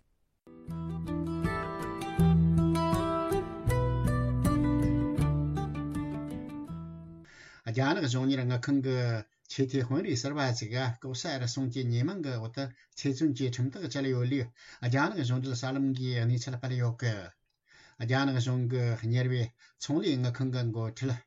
རྒྱ་ནག་གཞུང་གཉེར་དངུལ་ཁང་གི་ཆེས་མཐོའི་དཔོན་རིགས་ཟུར་པ་ཞིག་གིས་ལྐོག་ཟ་རུལ་སུངས་ཀྱི་ཉེས་མིང་གི་འོག་ཏུ་ཚེ་བཙོན་གྱི་ཁྲིམས་ཐག་བཅད་ཡོད་ལུགས་རྒྱ་ནག་གཞུང་འབྲེལ་གསར་ལམ་གྱིས་གནས་ཚུལ་སྤེལ་ཡོད་གི། རྒྱ་ནག་གཞུང་གི་གཉེར་བའི་ཚོང་ལས་དངུལ་ཁང་གི་འགོ་ཁྲིད་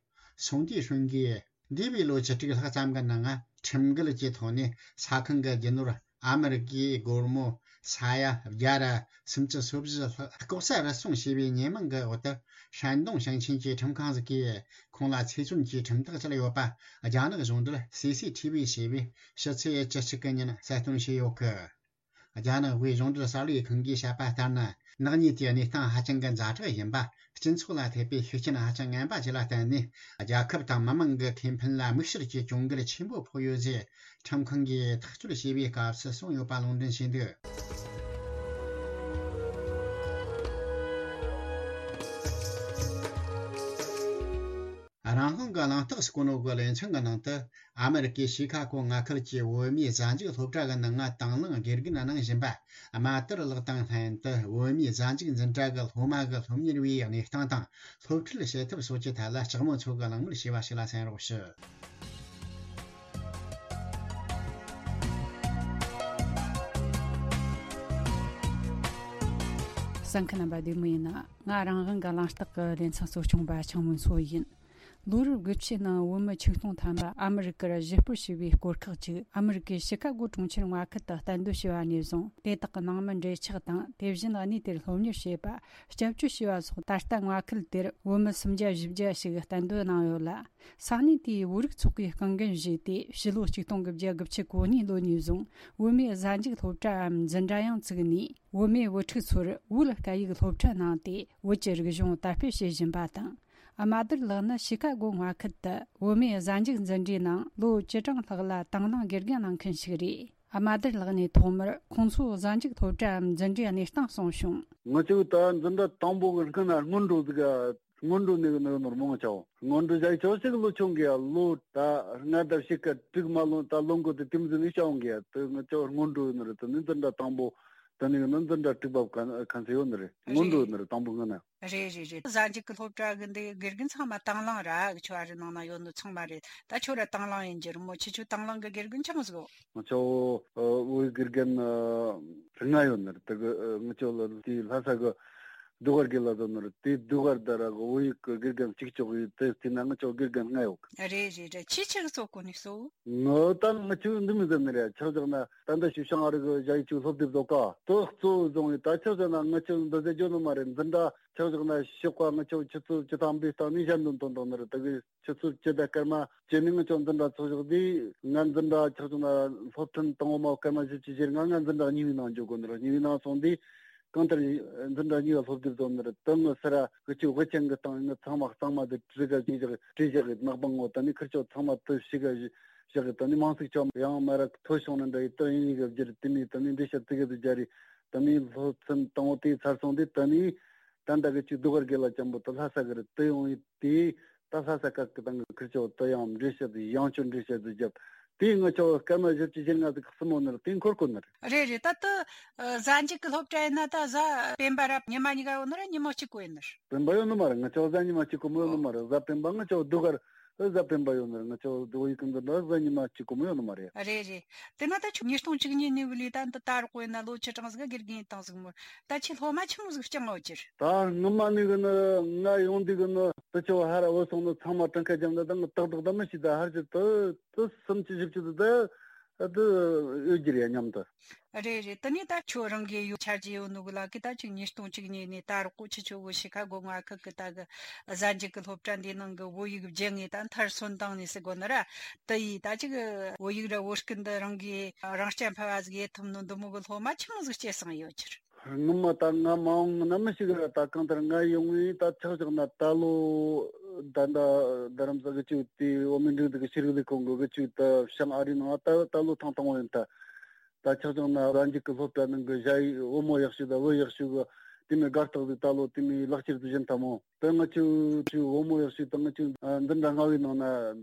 སུང་ཏི་ཧྲུན་གྱིས་འདས་པའི་ལོ་བཅུ་དྲུག་ལྷག་ཙམ་གྱི་ནང་ཁྲིམས་འགལ་གྱི་ཐོག་ནས་ས་ཁང་གི་རྒྱུ་ནོར་ཨ་མི་རི་ཀའི་སྒོར་མོ་ས་ཡ་བརྒྱ་ར་སུམ་ཅུ་སོ་བཞི་ལྷག་ལྐོག་ཟ་རུལ་སུངས་བྱས་པའི་ཉེས་མིང་གི་འོག་ཏུ་ཧྲན་ཏུང་ཞིང་ཆེན་གྱི་ཁྲིམས་ཁང་ཞིག་གིས་ཁོང་ལ་ཚེ་བཙོན་གྱི་ཁྲིམས་ཐག་བཅད་ཡོད་པ་རྒྱ་ནག་གཞུང་འབྲེལ་སི་སི་ཐི་བི་ཞེས་པས་ཕྱི་ཚེས་བཅུ་གཅིག་གི་ཉིན་གསལ་སྟོན་བྱས་ཡོད་གི། རྒྱ་ནག་དབུས་གཞུང་འབྲེལ་གསར་ལས་ཁང་གིས་བཤད་པ་ལྟར་ན། ནག་ཉེས་དེའི་གནས་སྟངས་ཧ་ཅང་གི་ཛ་དྲག་ཡིན་པ། སྤྱི་ཚོགས་ལ་ཐེབས་པའི་ཤུགས་རྐྱེན་ཧ་ཅང་ངན་པ་ཞིག་ལ་བརྟེན་ནས། རྒྱལ་ཁབ་དང་མི་དམངས་ཀྱི་ཁེ་ཕན་ལ་དམིགས་བསལ་གྱི་གྱོང་གུད་ཆེན་པོ་ཕོག་ཡོད་ཅེས། ཁྲིམས་ཁང་གིས་ཐག་གཅོད་བྱས་པའི་སྐབས་སུ་གསུངས་ཡོད་པ་ལུང་འདྲེན་བྱས་འདུག་རང་དབང་གི་གླེང་སྟེགས་སུ་བཀོད་ནོ་གི་ལེ་ཚན་གྱི་ནང་དུ། ཨ་མི་རི་ཀའི་ཤི་ཁ་གོ་མངའ་ཁུལ་གྱི་བོད་མིའི་གཟའ་མཇུག་སློབ་གྲྭ་གི་ནང་ང་དང་བླངས་དགེ་རྒན་གནང་བཞིན་པ། རྨ་དར་ལགས་དང་ལྷན་དུ་བོད་མིའི་གཟའ་མཇུག་འཛིན་གྲྭ་གི་སློབ་མ་གི་སློབ་གཉེར་བའི་གནས་སྟངས་དང་སློབ་ཁྲིད་བྱེད་ཐབས་སོགས་ཀྱི་ཐད་ལ་ལྕགས་མོ་མཚོ་གིས་གླེང་མོལ་བྱས་པ་ཞིག་ལ་གསན་རོགས་ཞུ། གསན་མཁན་རྣམ་པ་བདེ་མོ་ཡིན་ན། ང་རང་དབང་གི་གླེང་སྟེགས་ཀྱི་ལེ་ཚན་གཙོ་སྐྱོང་པ་ཆང་མོ་མཚོ་ཡིན། ལོ་རབས་དགུ་བཅུའི་ནང་བོད་མི་ཆིག་སྟོང་ཐམ་པ་ཨ་མི་རི་ཀར་གཞིས་སྤོར་བྱས་པའི་སྐོར་ཁག་ཅིག་ཨ་མི་རི་ཀའི་ཤི་ཀ་གོ་གྲོང་ཁྱེར་མངའ་ཁུལ་དུ་གཏན་སྡོད་བྱས་པ་ནས་བཟུང་། དེ་དག་གི་ནང་མི་འབྲེལ་ཆགས་དང་། དེ་བཞིན་གནས་དེར་སློབ་གཉེར་བྱས་པ། སྐྱབས་བཅོལ་བྱས་པ་སོགས། ད་ལྟ་མངའ་ཁུལ་དེར་བོད་མི་སུམ་བརྒྱ་བཞི་བརྒྱ་ཞིག་གཏན་སྡོད་གནང་ཡོད་ལ། ས་གནས་དེའི་བོད་རིགས་ཚོགས་པའི་རྐང་འགན་བཞེས་ཏེ། ཕྱི་ལོ་ཆིག་སྟོང་དགུ་བརྒྱ་དགུ་བཅུ་གོ་གཉིས་ལོ་ནས་བཟུང་བོད་མིའི་གཟའ་མཇུག་སློབ་གྲྭའམ་འཛིན་གྲྭ་ཡང་བཙུགས་ནས། བོད་མིའི་བུ་ཕྲུག་ཚོར་བོད་སྐད་ཡིག་སློབ་ཁྲིད་གནང་སྟེ། བོད་ཀྱི་རིག་གཞུང་དར་སྤེལ་བྱེད་བཞིན་པ་དང་། རྨ་དར་ལགས་ནི་ཤི་ཀ་གོ་མངའ་ཁུལ་དུ་བོད་མིའི་གཟའ་མཇུག་འཛིན་གྲྭའི་ནང་ལོ་བཅུ་གྲངས་ལྷག་ལ་དང་བླངས་དགེ་རྒན་གནང་མཁན་ཞིག་རེད། རྨ་དར་ལགས་ནས་ཐོག་མར་ཁོང་ཚོའི་གཟའ་མཇུག་སློབ་གྲྭའམ་འཛིན་གྲྭའི་གནས་སྟངས་གསུངས་བྱུང་། ང་ཚོས་ད་འཛིན་གྲྭ་དང་པོ་གི་སྔོན་ན་སྔོན་འགྲོ་ཟིག་སྔོན་འགྲོ་ནས་ནི་ནོར་མང་ཆེ་བ། སྔོན་འགྲོ་བྱ་ཆོག་ཞིག་ལོ་ཆུང་གི་ལོ་ད་ལྔ་དང་ཕྱེད་ཀ་དྲུག་མ་ལོན་ད་ལོ་འགོ་དེ་དེ་མི་ཟིན་ནས་བྱ་འོང་གི་དེ་ང་ཚོ་སྔོན་འགྲོ་ནི་རེད། དེ་ནི་འཛིན་གྲྭ་དང་པོ་དེ་ནི་ནི་འཛིན་གྲྭ་དྲུག་པ་ཁ་ཁ་ཚེ་ཡོད་ནི་རེད། སྔོན་འགྲོ་རེད། ནི་རེད། དང་པོ་སྔོན་ན། རེད་རེད་རེད། གཟའ་མཇུག་གི་སློབ་གྲྭ་གི་འདི་དགེ་རྒན་ཚང་མ་དང་བླངས་ར་གི་ཆོ་བ་རི་ནང་ན་ཡོད་ནི་ཚང་མ་རེད། ད་ཁྱོད་ར་དང་བླངས་ཡིན་གྱི་རེད་མོ། ཁྱེད་ཆོ་དང་བླངས་གི་དགེ་རྒན་ཆི་མོ་ཟིག་ཡོད། ང་ཚོ་ཨ་བོད་ཡིག་དགེ་རྒན་ཨ་ལྔ་ཡོད་ནི་རེད། དེ་གི་ཨ་ང་ཚོ་ལ་དེ་ལྷ་ས་གི་ཟློས་གར་དགེ་ལགས་ཟེར་ནི་རེད། དེ་ཟློས་གར་དེ་ར་གི་བོད་ཡིག་གི་དགེ་རྒན་གཅིག་ལྕོགས་ཡོད། དེ་དེ་ན་ང་ཚོ་དགེ་རྒན་ལྔ་ཡོད་གི། རེད་རེད་རེད། ཁྱེད་ཆི་གི་གཙོ་གོ་ནས་གསོ། ངོ་ད་ང་ཚོས་འདི་མི་ཟེར་ནི་རེད། ཆ་བཞག་ན་ད་ལྟ་ཞུ་ཤང་ཨ་རི་གི་ཞ་ཡི་ཆུ་སློབ་དེབ་བཟོ་ཀ་དེ་གཙོ་བོ་བཟུང་བའི་ད་ཆ་བཞག་ན་ང་ཚོས་འདི་ཟེར་རྒྱུ་ནི་མ་རེད། འཛིན་གྲྭ་ཆ་བཞག་ན་ཞོགས་པ་ང་ཚོ་ཆུ་ཚོད་བཅུ་ཐམ་པའི་སྟེང་ནས་ཞལ་འདོན་ཐོན་བཏང་ནི་རེད། ད་གི་ཆུ་ཚོད་བཅུ་དང་སྐར་མ་བཅུ་ནས་ང་ཚོ་འཛིན་གྲྭ་ཚོགས་ཞོག་དེ་ང་འཛིན་གྲྭ་ཆ་བཞག་ན་སློབ་ཐུན་དང་པོ་མ་སྐར་མ་བཞི་བཅུ་ཞེ་ལྔ་ང་འཛིན་གྲྭ་གཉིས་པའི་ནང་འཇོག་དགོས་ནི་རེད། གཉིས་པའི་ནང་སོང་དུས་གང་ལྟར་འཛིན་གྲྭ་གཉིས་པ་སློབ་དེབ་བཟོ་ནི་རེད། དེ་ངོ་སར་གི་ཆུ་དབུ་ཅན་གི་སྟེང་ནས་ཚང་མ་གཙང་མ་དེ་བྲིས་ག་ཅིག་བཞག་བྲིས་བཞག་གི་ནག་པང་ངོ་ད་ནི་ཁིར་ཆོ་ཚང་མ་དེ་ཞིག་ག་བཞག་གི་ད་ནི་མང་ཚིག་ཆོ་ཡང་མ་ར་ཐོ་བྱུང་ན་འདྲ་ཡི་ད་ཡིན་ཡི་ག་བསྒྱུར་དེ་ནི་ད་ནི་འགྲེལ་བཤད་དེ་ག་དུ་སྦྱར་རི་ད་ནི་སློབ་ཚན་དང་པོ་དེ་ཚར་སོང་དེ་ད་ནི་ད་ད་གི་ཅིག་ཟློས་གར་དགེ་ལགས་ཅན་པོ་ད་ལྷ་ས་གི་རི་དེ་ཡོང་ཡི་དེ་ད་ལྷ་ས་ཁ་གི་ད་ངི་ཁིར་ཆོ་ད་ཡང་འགྲེལ་བཤད་དེ་ཡང་ཆོ་འགྲེལ་བཤད་དེ་བརྒྱབ་དེ་ང་ཆོ་སྐར་མ་བཞི་བཅུ་ཞེ་ལྔ་དེ་གི་སྲིན་མོ་ནི་རི་དེ་འཁོར་གོ་ནི་རི། རེད་རེད། ད་ད་གཟའ་མཇུག་གི་སློབ་གྲྭ་ཡིན་ན་ད་གཟའ་སྤེན་པ་ར་ཉི་མ་གཉིས་ཀ་ཡོད་ནི་ར་ཉི་མ་གཅིག་གོ་ཡིན་ནི་རི། སྤེན་པ་ཡོད་ནི་མ་རེད། ང་ཆོ་གཟའ་ཉི་མ་གཅིག་གོ་མོ་ཡོད་ནི་མ་རེད། གཟའ་སྤེན་པ་ང་ཆོ་ཟློས་གར་གཟའ་སྤེན་པ་ཡོད་ནི་རེད། ང་ཆོ་ཟློས་གར་གི་འཛིན་གྲྭ་གཟའ་ཉི་མ་གཅིག་གོ་མོ་ཡོད་ནི་མ་རེད། རེད་རེད། དེ་ན་ད་ཁྱོད་ཉིས་སྟོང་བཅུ་གཉིས་ནས་བུད་ལས་ད་འདི་ད་རོགས་ཡིན་ན་ལོ་བཅུ་གྲངས་ཟིག་དགེ་རྒན་ཡིན་བཏང་ཟིག་མོ། ད་ཁྱོད་སློབ་མ་ཆི་མོ་ཟིག་བསྐྱངས་ཡོད་ཀྱི་རེད། ད་སྔོན་མ་ནས་གི་ནི་ང་ཡོང་དུས་གི་ནི་དེ་ཆོ་ཧ་ར་བུད་སོང་ནི་ཚང་མ་གྲངས་ཀ་རྒྱབ་ན་ད་ང་ཏག་ཏག་ད་མི་ཤེས། ད་ཧར་གྱི་དེ་དེ་སུམ་ཅུ་བཞི་བཅུ་དེ་ད་དེ་ཡོད་ཀྱི་རེད་མཉམ་དུ། རེད་རེད། དེ་ནས་ད་ཁྱོད་རང་གི་ཡོད་ཆ་རྒྱུས་ཡོད་ནོ་གི་ལ་གི་ད་ཅིག་ཉིས་སྟོང་བཅུ་གཉིས་ནས་ད་རོགས་གོ་ཁྱེད་ཆོ་གི་ཤི་ཁ་གོ་མངའ་ཁུལ་གི་ད་གི་གཟའ་མཇུག་གི་སློབ་གྲྭ་འདིའི་ནང་གི་བོད་ཡིག་སྦྱང་ངེས་ད་མཐར་སོན་བཏང་ནས་ཟེར་གོ་ནི་ར། དེ་ཡིས་ད་ཅིག་བོད་ཡིག་ར་བོད་སྐད་འདི་རང་གིས་རང་རྐྱ་འཕེར་བ་ཟིག་ཡེད་ཐུབ་ནོ་འདི་མོ་གི་སློབ་མ་ཆི་མོ་ཟིག་སྐྱེས་སོང་ཡོད་ཀྱི་རེད། སྔོན་མ་ད་ང་མ་འོངས་ན་མི་ཞིག་ར་ད་གང་ལྟར་ང་ཡོང་ངེས་ད་ཆག་ཆག་ན་ད་ལོ་ ད་ད་རྡ་རམ་ས་གི་ཅིག་དེ་འོ་མི་འགྲིག་དེ་གི་ཤེས་རིག་ལས་ཁུངས་གི་གི་ཅིག་ད་བྱང་ཨ་རི་ནང་ད་ད་ལོ་ཐེངས་དང་པོ་ཡིན་ད། ད་ཆག་ཆག་ན་རང་རྒྱུད་ཀྱི་སློབ་གྲྭ་ནང་གི་ཞ་ཡི་བུ་མོ་ཡག་ཤོས་དང་བུ་ཡག་ཤོས་གི་དེ་མོ་དགའ་རྟགས་དེ་ད་ལོ་དེ་མོ་ལག་ཁྱེར་དུ་བཞིན་ཐལ་མོ། ད་ང་ཆུ་ཆུ་བུ་མོ་ཡག་ཤོས་དང་ང་ཆུ་འཛིན་གྲྭ་ལྔ་བའི་ནང་ན་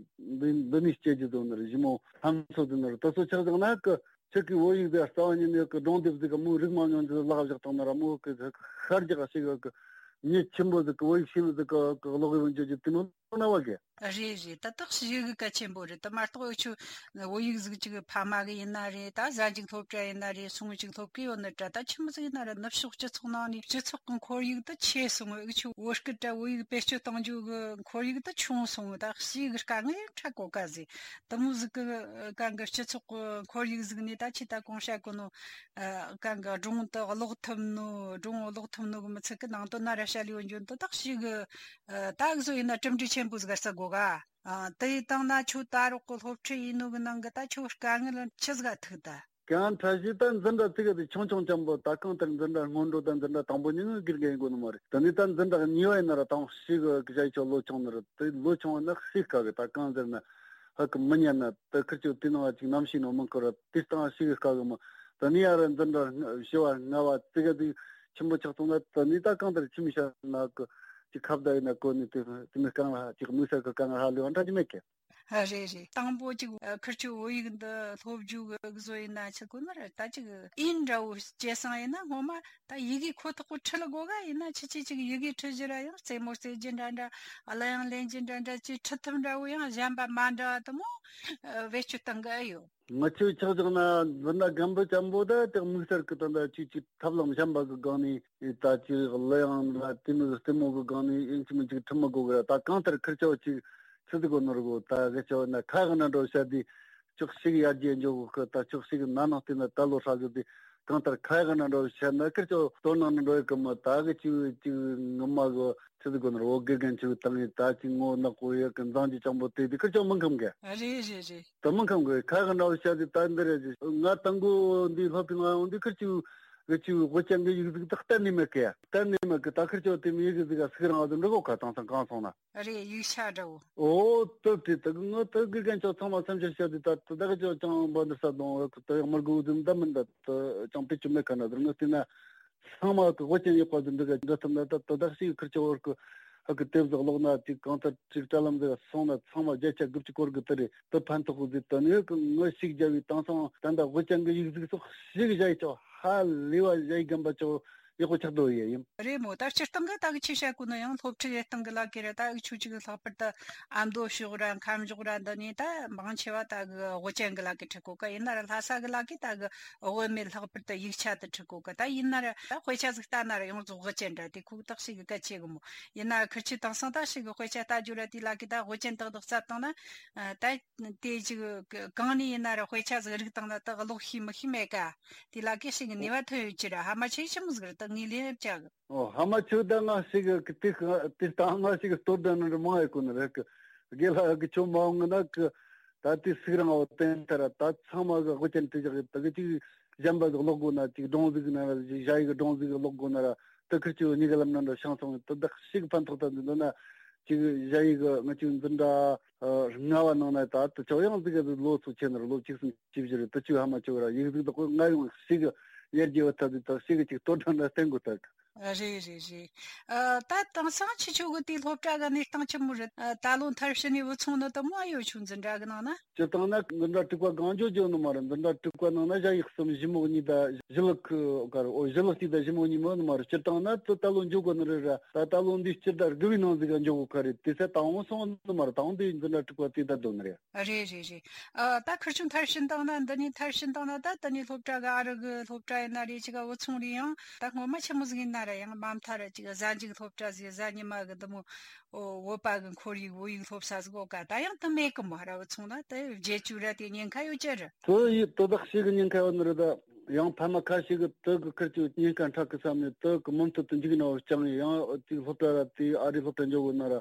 འདི་འདི་ནས་སྐྱེ་རྒྱུ་དོན་ནི་རེད། ཞི་མོ་ལྷམ་ཚོ་དོན་ནི་རེད། ད་སོ་ཆག་ཆག་ན་གི་ཁྱེད་ཀྱི་བོད་ཡིག་དེ་རྩ་བ་ཉིད་ནས་གི་སྒྲུང་དེབ་ཟིག་གི་མོའི་རིག་མ་མྱོང་རྒྱུ་ལག་བཞག་བཏང་ན་ར་མོ་གི་ཤར་རྒྱག་ཞིག་གི་མྱི་ཆེན་པོ་ཟིག་གི་བོད་ཡིག་ཤེས་ནི་ཟིག་གི་གི་ཀློག་ཡོང་རྒྱུ་རྒྱུ་དེ་མོ་ན་བ་གི། རེད་རེད། ད་དག་ཞིག་གི་གལ་ཆེན་པོ་རེད། ད་མ་གཏོགས་འུ་ཆོ་བོད་ཡིག་ཟིག་ཅིག་ཕ་མ་གི་ཡིན་ན་རེད། ད་གཟའ་མཇུག་སློབ་གྲྭ་ཡིན་ན་རེད། སོང་ཅིག་སློབ་གི་ཡོད་ནི་འདྲ། ད་ཆི་མོ་ཟིག་ཡིན་ན་རེད། ནུབ་ཕྱོགས་སྤྱི་ཚོགས་ནང་ནས་སྤྱི་ཚོགས་ཀྱི་ཁོར་ཡུག་ད་ཆེ་སོང་། འུ་ཆོ་བོད་སྐད་དྲ་བོད་ཡིག་བེད་སྤྱོད་གཏོང་རྒྱུ་གི་ཁོར་ཡུག་ད་ཆུང་སོང་། ད་ཞིག་གི་དཀའ་ངལ་ཡང་འཕྲད་གོ་ག་ཟིག་དེ་མོ་ཟིག་གི་གང་གི་སྤྱི་ཚོགས་ཀྱི་ཁོར་ཡུག་ཟིག་ནས་ད་ཆི་ད་གོང་བཤད་གོ་ནོ། ཨ། གང་གི་སྒྲུང་དུ་ཀློག་ཐུབ་ནོ། སྒྲུང་ཀློག་ཐུབ་ནོ་གི་མི་ཚད་གི་ནང་དོན་ན་ར་བཤད་ལས་འཇོན་དོ་དག་ཞིག་གི། ཨ། ད་གཟོད་ཡིན་ན་གྲུབ་འབྲས་ཆེན་པོ་ཟིག་ག་ས་གོ་ག་ཨ། དེ་ཡི་སྟེང་ན་ཁྱོད་ད་རོགས་གི་སློབ་ཁྲིད་ཡིན་ནོ་གི་ནང་གི་ད་ཁྱོད་དཀའ་ངལ་ཆི་ཟིག་ག་ཐུག་ད། གང་ཕྲ་ཞིག་ད་འཛིན་གྲྭ་ཙི་ག་དེ་ཆུང་ཆུང་ཅན་པོ། ད་གང་ལྟར་འཛིན་གྲྭ་སྔོན་འགྲོ་དང་འཛིན་གྲྭ་དང་པོ་གཉིས་ནི་དགེ་རྒན་ཡིན་དགོས་ནི་མ་རེད། དེ་ནས་ད་འཛིན་གྲྭ་གཉིས་པ་ཡིན་ན་ར་དང་ཞིག་གི་གི་ཞ་ཡི་ཆོ་ལོ་ཆུང་ནི་རེད། དེ་ལོ་ཆུང་བ་ན་ཤེས་དཀའ་གི། ད་གང་ཟེར་ན་ཧ་གི་མི་ཉན་ན་དེ་ཁིར་ཆོ་དེ་ནང་ཅིག་ནམ་ཤེས་ནོ་མིན་ཁོ་ར་དེ་སྟངས་ཤེས་གི་དཀའ་གི་མོ། ད་ནི་ཡ་ར་འཛིན་གྲྭ་བཞི་བ་ལྔ་བ་ཙི་ག་དེ་ཆེན་པོ་ཆགས་སོང་ན་ད་ནི་ད་གང་ལྟར་ཁྱིམ་ཤ་ན་གི་ཅིག་ཁ་བརྡ་ཡིན་ན་གོ་ནི་དེ་དེ་མི་རྐང་ལ་ཅིག་དམིགས་བསལ་གི་དཀའ་ངལ་ཧ་ལས་བ་འདྲ་ཅིག་མེད་གི། ཨ། རེད་རེད། དང་པོ་ཅིག་ཨ། ཁིར་ཆོ་བོད་ཡིག་འདི་སློབ་རྒྱུ་གི་བཟོ་ཡིན་ན་ཆི་གོ་ན་ར་ད་ཅིག་ཨིན་འདྲ་བོ་སྐྱེ་སང་ཡིན་ན་སྔོན་མ་ད་ཡི་གེ་ཁོ་ཐག་པོ་ཁྲིད་ལ་དགོས་ག་ཡིན་ན་ཆི་ཆི་ཅིག་ཡི་གེ་ཁྲིད་རྒྱུ་ར་ཡང་རྩེད་མོ་རྩེ་རྒྱུ་འདྲ་འདྲ། ཨ། ལ་ཡང་ལེན་རྒྱུ་འདྲ་འདྲ་ཅིག་ཁྲིད་ཐུབ་འདྲ་བོ་ཡང་གཞན་པ་མ་འདྲ་བ་དུ་མོ་ཨ། བེད་སྤྱོད་གཏང་གི་ཨེ་ཡོད། ང་ཆོས་ཆགས་ཆགས་ན་འཛིན་གྲྭ་རྒན་པོ་ཅན་པོ་ད་དེ་དམིགས་བསལ་གི་ད་ད་ཅིག་ཅིག་ཐབས་ལམ་གཞན་པ་གི་སྒང་ནས་ད་ཅིག་གླུ་དབྱངས་ལ་དེ་མོ་གི་རྩེད་མོ་གི་སྒང་ནས་ཨིན་ཅི་མིན་ཅིག་ཁྲིད་མི་དགོས་གི་ར། ད་གང་ལྟར་ཁིར་ཆོ་ཅིག་ཆི་ཟིག་གོ་ནོར་གོ་ད་གི་ཆོ་ན་ཁ་གི་ན་འགྲོ་བཤད་དེ་ཅོག་ཞིག་ཡར་རྒྱས་འཇོག་གི་ད་ཅོག་ཞིག་ན་ནང་དེ་ན་ད་ལོ་ཧྲ་གི་དེ་གང་ལྟར་ཁ་གི་ན་འགྲོ་བཤད་ན་ཁིར་ཆོ་དོ་ནང་ན་འགྲོ་ཡི་གི་མ་ད་གི་ཅིག་ཅིག་ངོ་མ་གི་ཆི་ཟིག་གོ་ནོར་འོ་དགེ་རྒན་ཆུ་བཏང་ཡི་ད་ཅིག་ངོ་ནག་པོ་ཡི་གི་མཛངས་ཀྱི་ཅང་པོ་དེ་དེ་ཁིར་ཆོ་མི་ཁམ་གི། རེད་རེད་རེད། དེ་མི་ཁམ་གི་ཁ་གི་འདྲ་བོ་བཤད་དེ་ད་འདི་རེད། ང་དང་པོ་འདི་སློབ་གྲྭའི་ནང་ཡོང་དུས་ཁིར་ཆུ་གི་ཆུ་དབུ་ཅན་གི་ཡིག་གཟུགས་དེ་གཏན་ནས་མེད་གི། གཏན་ནས་མེད་གི། ད་ཁིར་ཆོ་དེ་མི་ཡིག་གཟུགས་ག་སུག་རང་བ་དུ་འགྲོ་གོ་ཁ་དང་སང་གང་སོང་ན། རེད། ཡིག་ཆ་འདྲ་བོ། ཨོ་དེ་དེ་དེ་ངོ་དེ་དགེ་རྒན་ཆོ་ཚང་མ་སེམས་ཆུང་བཤད་དེ་ད་དེ་ད་གི་ཆོ་ཅང་འབའ་འདི་ས་དང་དེ་ཡག་མར་གུ་དུ་འདའ་མི་འདའ་དེ་ཅང་པེ་ཆུ་མེད་ཁ་ན་དེ་ངོ་དེ་ན། ཚང་མ་གི་དབུ་ཅན་ཡོད་པ་དེ་འདི་ག་འདྲ་ཐུབ་ན་ད་དོ་དག་ཞིག་ཁིར་ཆོ་བར་གི་ཧ་གི་དེབ་ཟིག་ཀློག་ན་ཅིག་གང་ལྟར་ཅིག་དྲ་ལམ་ཟིག་སོང་ན་ཚང་མ་བརྒྱ་ཆ་དགུ་བཅུ་སྐོར་གི་དེ་རེད། དེ་ཕན་ཐོགས་གི་ཟིག་དེ་ནི་གི་ངོ་ཞིག་རྒྱ་བའི་དེང་སང་ད་ལྟ་དབུ་ཅན་གི་ཡིག་གཟུགས་སོགས་ཞིག་བཞག་ཡི་ཆོ་ཧ་ལས་བ་བཞག་ཡི་རྒན་པ་ཆོ་ཡག་པོ་ཆགས་འགྲོ་ཡི་ཡིན། རེད་མོ། ད་སྤྱིར་བཏང་གི་ད་གི་ཆེ་བཤད་གོ་ན་ཡང་སློབ་ཁྲིད་ལས་སྟངས་གི་ལ་ཀི་ར་ད་གི་ཆོ་ཅིག་ལྷག་པར་དུ་ཨ་མདོ་ཕྱོགས་ར་ཁམས་ཕྱོགས་ར་འདི་ནས་ད་མང་ཆེ་བ་ད་གི་དབུ་ཅན་གི་ལ་ཀི་ཁྲིད་གོ་ག་ཡིན་ན་ར་ལྷ་ས་གི་ལ་ཀི་ད་གི་དབུ་མེད་ལྷག་པར་དུ་ཡིག་ཆ་དེ་ཁྲིད་གོ་གི། ད་ཡིན་ན་ར་ད་དཔེ་ཆ་ཟིག་ལྟ་ན་ར་ཡོངས་རྫོགས་དབུ་ཅན་འདྲ་དེ་ཁུག་ཐག་ཞིག་གི་གལ་ཆེ་གི་མོ། ཡིན་ན་ཁིར་ཆོ་དེང་སང་ད་ཞིག་གི་དཔེ་ཆ་ལྟ་རྒྱུ་ར་དེ་ལ་ཀི་ད་དབུ་ཅན་ཏག་ཏག་བརྩམས་བཏང་ན་ད་དེ་ཅིག་གང་ནས་ཡིན་ན་ར་དཔེ་ཆ་ཟིག་རིག་བཏང་ན་ད་ཀློག་ཤེས་མི་ཤེས་མེད་ཀ་དེ་ལ་ཀི་ཞིག་གི་ནུས་པ་ཐོན་ཡོད་ཀྱི་ར། ཧ་མ་ཆེ་ཆི་མོ་ཟིག་ར་ད་ངས་ལན་བྱ་གི། ཨོ་ཧ་མ་ཆོ་ད་ང་ཞིག་གི་དེ་དེ་ལྟ་ང་ཞིག་གི་ལྟོ་ལྡན་ནི་མང་ཡོད་གོ་ནི་རེད་གི། དགེ་ལྷ་གི་ཆོ་མ་འོང་ན་གི་ད་དེ་སུག་རང་བ་བསྟན་ཐལ་ར། ད་ཚང་མ་གི་དབུ་ཅན་དེ་ཞག་གི་ད་གི་ཅིག་གཞན་པ་གི་ཀློག་དགོས་ན་ཅིག་སྒྲུང་ཟིག་ན་ཞ་ཡི་གི་སྒྲུང་ཟིག་གི་ཀློག་དགོས་ན་ར་ད་ཁིར་ཆོ་གཉིས་ཀ་ལམ་ན་འདྲ་ཤང་སོང་ད་ད་ཞིག་ཕན་ཐོགས་ད་འདི་འདོད་ན་ཅིག་ཞ་ཡི་གི་ང་ཅིག་འཛིན་གྲྭ་ལྔ་བ་ནང་ན་ད་ད་ཆོ་ཡང་ཟིག་གི་ལོ་ཚོ་ཆེ་ན་ར་ལོ་བཅུ་གསུམ་བཅུ་བཞི་རེད། ད་ཆོ་ཧ་མ་ཆོ་ར་ཡིག་ཟིག་ད་ཁོ་ང་ཡང་ཞིག་གི་ཡར་རྒྱས་བ་ད་ད་ཞིག་གི་ཅིག་ལྟོ་ལྡན་ན་བསྟན་དགོས་ད། རེད་རེད་རེད། ཨ། ད་དེང་སང་ཁྱེད་ཆོ་གི་དེའི་སློབ་གྲྭ་གི་གནས་སྟངས་ཆི་མོ་རེད། ཨ། ད་ལོ་མཐར་ཕྱིན་ནས་བུ་ཆུང་ནི་དུ་མོ་ཨ་ཡོད་ཆུང་འཛིན་གྲྭ་གི་ནང་ན། སྤྱིར་བཏང་ན་འཛིན་གྲྭ་དྲུག་པ་གང་འཇོག་འཇོག་ནི་མ་རེད། འཛིན་གྲྭ་དྲུག་པ་ནང་ན་ཞ་ཡི་གསུམ་ཞི་མོ་གཉིས་ད་ཞི་ལུ་ཁུ་གར་ཨོ་ཞི་ལུ་སྟེ་ད་ཞི་མོ་གཉིས་མོ་ནི་མ་རེད། སྤྱིར་བཏང་ན་ད་ད་ལོ་འཇོག་གོ་ནི་རེད་ར། ད་ད་ལོ་འདི་སྤྱིར་ད་དགུ་བའི་ནང་ཟིག་ག་འཇོག་གོ་ཁ་རེད། དེ་ཚེ་དང་བོ་སོང་ནི་མ་རེད། དང་བོ་འདི་འཛིན་གྲྭ་དྲུག་པ་དེ་ད་སྡོད་ནི་རེད། རེད་རེད་རེད། ཨ། ད་ཁིར་ཆུང་མཐར་ཕྱིན་བཏང་ན་འདི་ནས་མཐར་ཕྱིན་བཏང་ན་ད་དེ་ནས་སློབ་གྲྭ་གི་ཨ་རི་གི་སློབ་གྲྭ་ཡིན་ན་རེད། ཅིག་བུ་ཆུང་རེད། ཡང་ད་སྔོན་མ་ཆི་མོ་ཟིག་ཡིན་ན་ར་ཡང་མ་མཐའ་ར་ཅིག་གཟའ་མཇུག་སློབ་གྲྭ་ཟིག་གཟའ་ཉི་མ་གི་འདི་མོ་ཨོ་བོད་པ་གི་ཁོར་ཡུག་བོད་ཡིག་སློབ་ས་ཟིག་ཡོད་ཀ་ད་ཡང་དེ་མེད་གི་མོ། ར་བུ་ཆུང་ན་དེ་བརྗེད་བཅུག་ར་དེ་ཉེན་ཁ་ཡོད་ཀྱི་རེད། དེ་ཡི་དེ་དག་ཞིག་གི་ཉེན་ཁ་ཡོད་ནི་རེད། ད་ཡང་ཕ་མ་ཁ་ཤས་གི་དེ་གི་ཁིར་ཆུ་ཉེན་ཁ་འཕྲད་གི་བསམ་ནས་དེ་གི་མུ་མཐུད་དུ་འཇུག་ན་བ་ཅང་ཡང་དེ་སློབ་གྲྭ་ར་དེ་ཨ་རི་སློབ་གྲྭ་འཇོག་གི་ན་ར་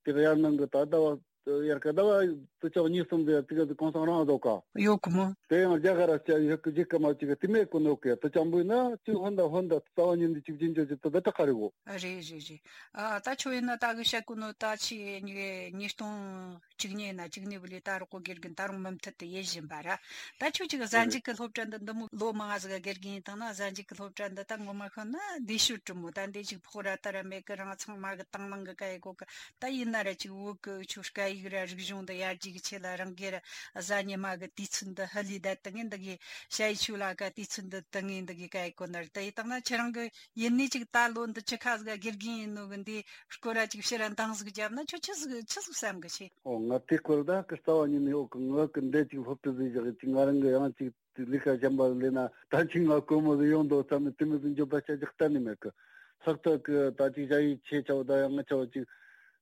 དེ་གི་ཡར་ནང་གི་ད་ལྟ་བ། ཡར་ཀ་ཟླ་བ་དུ་ཆོག་གཉིས་གསུམ་དེ་དུ་ག་གོང་སང་རང་བཟོ་ཀ། ཡོད་གི་མོ། དེ་ཡང་རྒྱ་གར་ར་སྐྱ་ཡོད་གི་རྒྱལ་ཁབ་མ་ཅིག་གི་དེ་མེད་གོ་ནོ་གི་དུ་ཅང་བུ་ན་ཅི་ཧོན་ད་ཧོན་ད་རྩ་བ་ཉིད་འདི་ཅིག་རྒྱུན་ཆད་ཅིག་ཏུ་ད་ཏྲ་ཁ་རི་གོ། རེད་རེད་རེད། ཨ་ད་ཆོ་ཡིན་ན་ད་གི་བཤད་གོ་ནོ་ད་ཆི་ཉི་ཉིས་སྟོང་གཅིག་གཉིས་ན་གཅིག་གཉིས་བུ་ལི་ད་རོག་གོ་དགེ་རྒན་ད་རུང་མུ་མཐུད་དུ་ཡེ་བཞིན་པ་ར། ད་ཁྱོད་ཅིག་གཟའ་མཇུག་གི་སློབ་གྲྭ་འདི་འདི་མོ་ལོ་མང་ང་ཟིག་ག་དགེ་རྒན་ཡིན་དང་ན་གཟའ་མཇུག་གི་སློབ་གྲྭ་འདི་ད་ངོ་མ་ཤོད་ན་འདི་ཤོད་གྲུ་མོ་ད་འདི་ཅིག་ཕོག་ར་ད་ར་མེད་གི། རང་ཚང་མ་གི་དང་བླངས་གི་ག་ཡེ་གོ་གི། ད་ཡིན་ན་ར་ཅིག་བོད་གི་ཆོ་སྐད་ཡིག་ར་རིག་གཞུང་འདི་ཡར་རྒྱས་གི་ཆེད་ལ་རང་གི་ར་གཟའ་ཉི་མ་གི་དུས་ཚོད་འདི་ཧ་ལས་ད་ཏི་ངན་འདི་གི་ཞ་ཡི་ཆོ་ལ་ག་དུས་ཚོད་འདི་ཏི་ངན་འདི་གི་ག་ཡེ་གོ་ན་ར། ད་ཡིན་དང་ན་ཁྱེད་རང་གི་ཡིན་ནི་ཅིག་ད་ལོ་འདི་ཅི་ཁ་ཟིག་དགེ་རྒན་ཡིན་ནོ་གི་འདི་སྐོར་ར་ཅིག་ཕྱིར་ར་འདང་ཟིག་བརྒྱབ་ན་ཁྱོད་ཆི་ཟིག་ཆི་ཟིག་བསམ་གི་ཆེ། ཨོ་ང་དེ་སྐོར་ད་གི་རྩ་བ་ཉིད་ནས་ཨོ་གི་ང་གི་འདི་ཅིག་སློབ་ཁྲིད་ཟིག་བཞག་ཅིག་ང་རང་གི་ཡང་ཅིག་ལས་ཀ་གཞན་པ་ལས་ན་ད་ཅིག་ང་དཀོན་མོ་ཟིག་ཡོང་འདུག་བསམ་ནས་དེ་མོ་ཟིག་འཇོན་པ་བྱ་རྒྱུ་གཏན་ནས་མེད་གི། ལྷག་ཏུ་གི་ད་ཅིག་ཞ་ཡི་ཆེ་ཆའོ་ད་ཡང་ང་ཆའོ་ཅིག་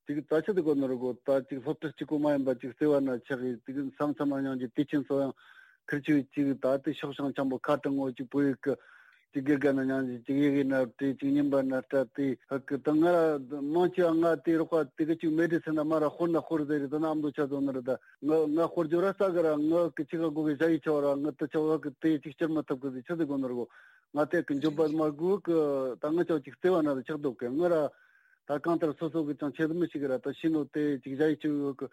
ཅིག་ད་ཆི་ཟིག་གོ་ནོ་ར་གོ། ད་ཅིག་སློབ་ཁྲིད་གཅིག་པོ་མ་ཡིན་པ་ཅིག་བརྩེ་བ་ན་ཆགས་ཡི་ཅིག་མཚམས་མཚམས་ན་ཡང་ཅིག་དུས་ཆེན་སོ་ཡང་ཁིར་ཆུ་ཅིག་ད་དེ་ཤོག་བྱང་འཆམ་པོ་ཁ་དྲང་ངོ་ཅིག་བོད་ཡིག་གི་ཅིག་དགེ་རྒན་ན་ཉང་ཅིག་ཅིག་ཡི་གེ་ན་བྲིས་ཅིག་རྙིང་པ་ན་སྤྲད་དེ་ཧ་གི་ད་ང་ར་མང་ཆེ་བ་ང་དེ་རོགས་པ་དེ་གི་ཅིག་མེད་དེ་སེ་ན་མ་ར་ཧོར་ན་ཧོར་ཟེར་རེད། ད་ན་ཨམ་དོ་ཆ་ཟོ་ན་ར་ད་ང་ང་ཧོར་ཇོ་ར་ས་གི་ར་ང་གི་ཅིག་ག་གོ་གི་ཞ་ཡི་ཆོ་ར་ང་དུ་ཆོ་ཧ་གི་དེ་ཅིག་སྤྱིར་མ་ཐབས་གི་ཟིག་ཆ་ཟིག་གོ་ནོ་ར་གོ། ང་དེ་གི་འཇོན་པ་མ་དགོས་གི། ད་ང་ཆོ་ཅིག་བརྩེ་བ་ན་ར་ཆགས་འདུག་གི། ང་ར་ད་གང་ལྟར་སོ་སོ་གི་ཅང་ཆེད་དུ་མི་ཞིག་གི་ར་ད་ཤི་ནོ་དེ་ཅིག་ཞ་ཡི་ཆོ་ཡོད་གི་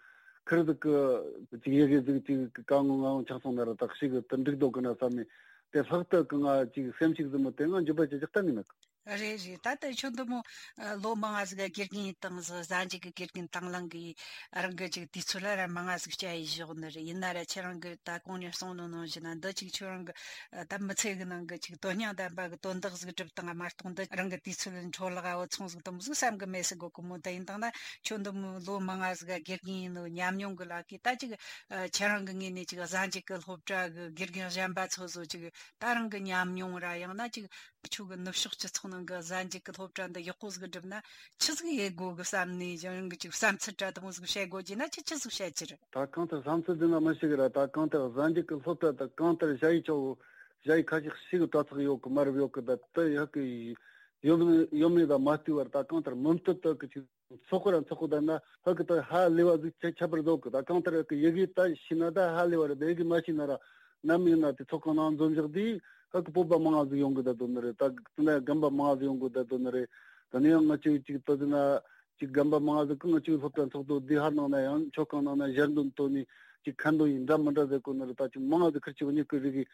ཁིར་ཟིག་གི་ཅིག་ཡི་གེ་ཟིག་ཅིག་གི་གང་ངོ་ང་ངོ་ཆགས་སོང་ན་ར་ད་ཤི་གི་དུ་འགྲིག་འདུག་གི་ན་བསམ་ནས། དེ་ལྷག་ཏུ་གི་ང་ཅིག་སེམས་ཤུགས་ཟིན་མོ་དེ་ང་འཇུ་པ་ཅི་ཅག་གཏན་ནས་མེད་གི། རེད་རེད། ད་ལྟ་ཁྱོད་འདི་མོ་ཨ་ལོ་མང་ང་ཟིག་དགེ་རྒན་ཡིན་དང་ཟི་གཟའ་མཇུག་གི་དགེ་རྒན་དང་བླངས་གི་རང་གི་ཅིག་དུས་ཚོད་ལ་ར་མང་ང་ཟིག་བསྐྱལ་ཡི་བཞག་ནི་རེད། ཡིན་ན་ར་ཁྱེད་རང་གི་ད་གོང་ནས་གསུངས་ནོ་ནང་བཞིན་ན་འདི་ཅིག་ཁྱོད་རང་གི་ཨ་ད་མི་ཚེ་གི་ནང་གི་ཅིག་དོན་སྙིང་ལྡན་པ་གི་དོན་དག་ཟིག་སྒྲུབ་དང་མ་གཏོགས་འདི་རང་གི་དུས་ཚོད་འཕྲོ་བརླག་འོ་ཚོང་ཟིག་དུ་མོ་ཟིག་བསམ་གི་མེད་ཟིག་གོ་གི་མོ། ད་ཡིན་དང་ན་ཁྱོད་འདི་མོ་ལོ་མང་ང་ཟིག་དགེ་རྒན་ཡིན་ནོ་ཉམས་མྱོང་གི་ལ་གི་ད་ཅིག་ཨ་ཁྱེད་རང་གི་ངོས་ནས་ཅིག་གཟའ་མཇུག་གི་སློབ་གྲྭ་གི་དགེ་རྒན་གཞན་པ་ཚོ་ཟོ་ཅིག་ད་རང་གི་ཉམས་མྱོང་ར་ཡང་ན་ཅིག་ཁྱོད་གི་ནུབ་ཕྱོགས་སྤྱི་ཚོགས་ནང་གི་གཟའ་མཇུག་གི་སློབ་གྲྭ་འདི་ཡག་པོ་ཟིག་བསྒྲུབ་ན་ཆི་ཟིག་ཡེད་དགོ་གི་བསམ་ནས་ཡང་གི་ཅིག་བསམ་ཚུལ་འདྲ་དེ་མོ་ཟིག་བཤད་དགོ་རྒྱུ་ན་ཁྱེད་ཆི་ཟིག་བཤད་རྒྱུ་རེད། ད་གང་ལྟར་བསམ་ཚུལ་འདི་ན་མི་ཞིག་ར་ད་གང་ལྟར་གཟའ་མཇུག་གི་སློབ་གྲྭ་ད་གང་ལྟར་ཞ་ཡི་ཆོ་ཞ་ཡི་ཁ་ཤས་ཤིག་གི་དྲ་ཚགས་ཡོད་གི་མ་རབས་ཡོད་གི། ད་དེ་ཡག་གི་ཡོད་ཡོད་མེད་ད་མ་ལྟོས་པར་ད་གང་ལྟར་མུ་མཐུད་དུ་གི་ཅིག་ཚོགས་པ་ར་ཚོགས་པ་ད་ན་ཧ་གི་ད་ཧ་ལས་པ་ཟིག་ཆ་ཁྱད་པར་བཟོ་གི། ད་གང་ལྟར་གི་ཡི་གེ་ད་ཤེས་ན་ད་ཧ་ལས་པ་རེད། ད་ཡི་གེ་མ་ཤེས་ན་ར་ནམ་ཡིན་ན་དེ་ཚོགས་ཁང་ནང་འཛོམས་བཞག་དུས་ཧ་གི་སྤོབས་པ་མང་ང་ཟིག་ཡོང་གི་ད་དོ་ནི་རེད། ད་དེ་ན་རྒན་པ་མང་ང་ཟིག་ཡོང་གི་ད་དོ་ནི་རེད། ད་ནི་ཡང་ང་ཅིག་ཅིག་ད་དེ་ན་ཅིག་རྒན་པ་མང་ང་ཟིག་གི་ང་ཅིག་སློབ་གྲྭ་ཚོགས་འདུ་དེ་ཧར་ནང་ན་ཡང་ཆོས་ཁང་ནང་ན་ཞལ་འདོན་ཐོག་ནས་ཅིག་ཁ་འདོན་ཡིན་འདྲ་མི་འདྲ་ཟེར་གོ་ནི་རེད། ད་ཅིག་མང་ང་ཟིག་ཁིར་ཅིག་གཉིས་ཀི་རིག་གི།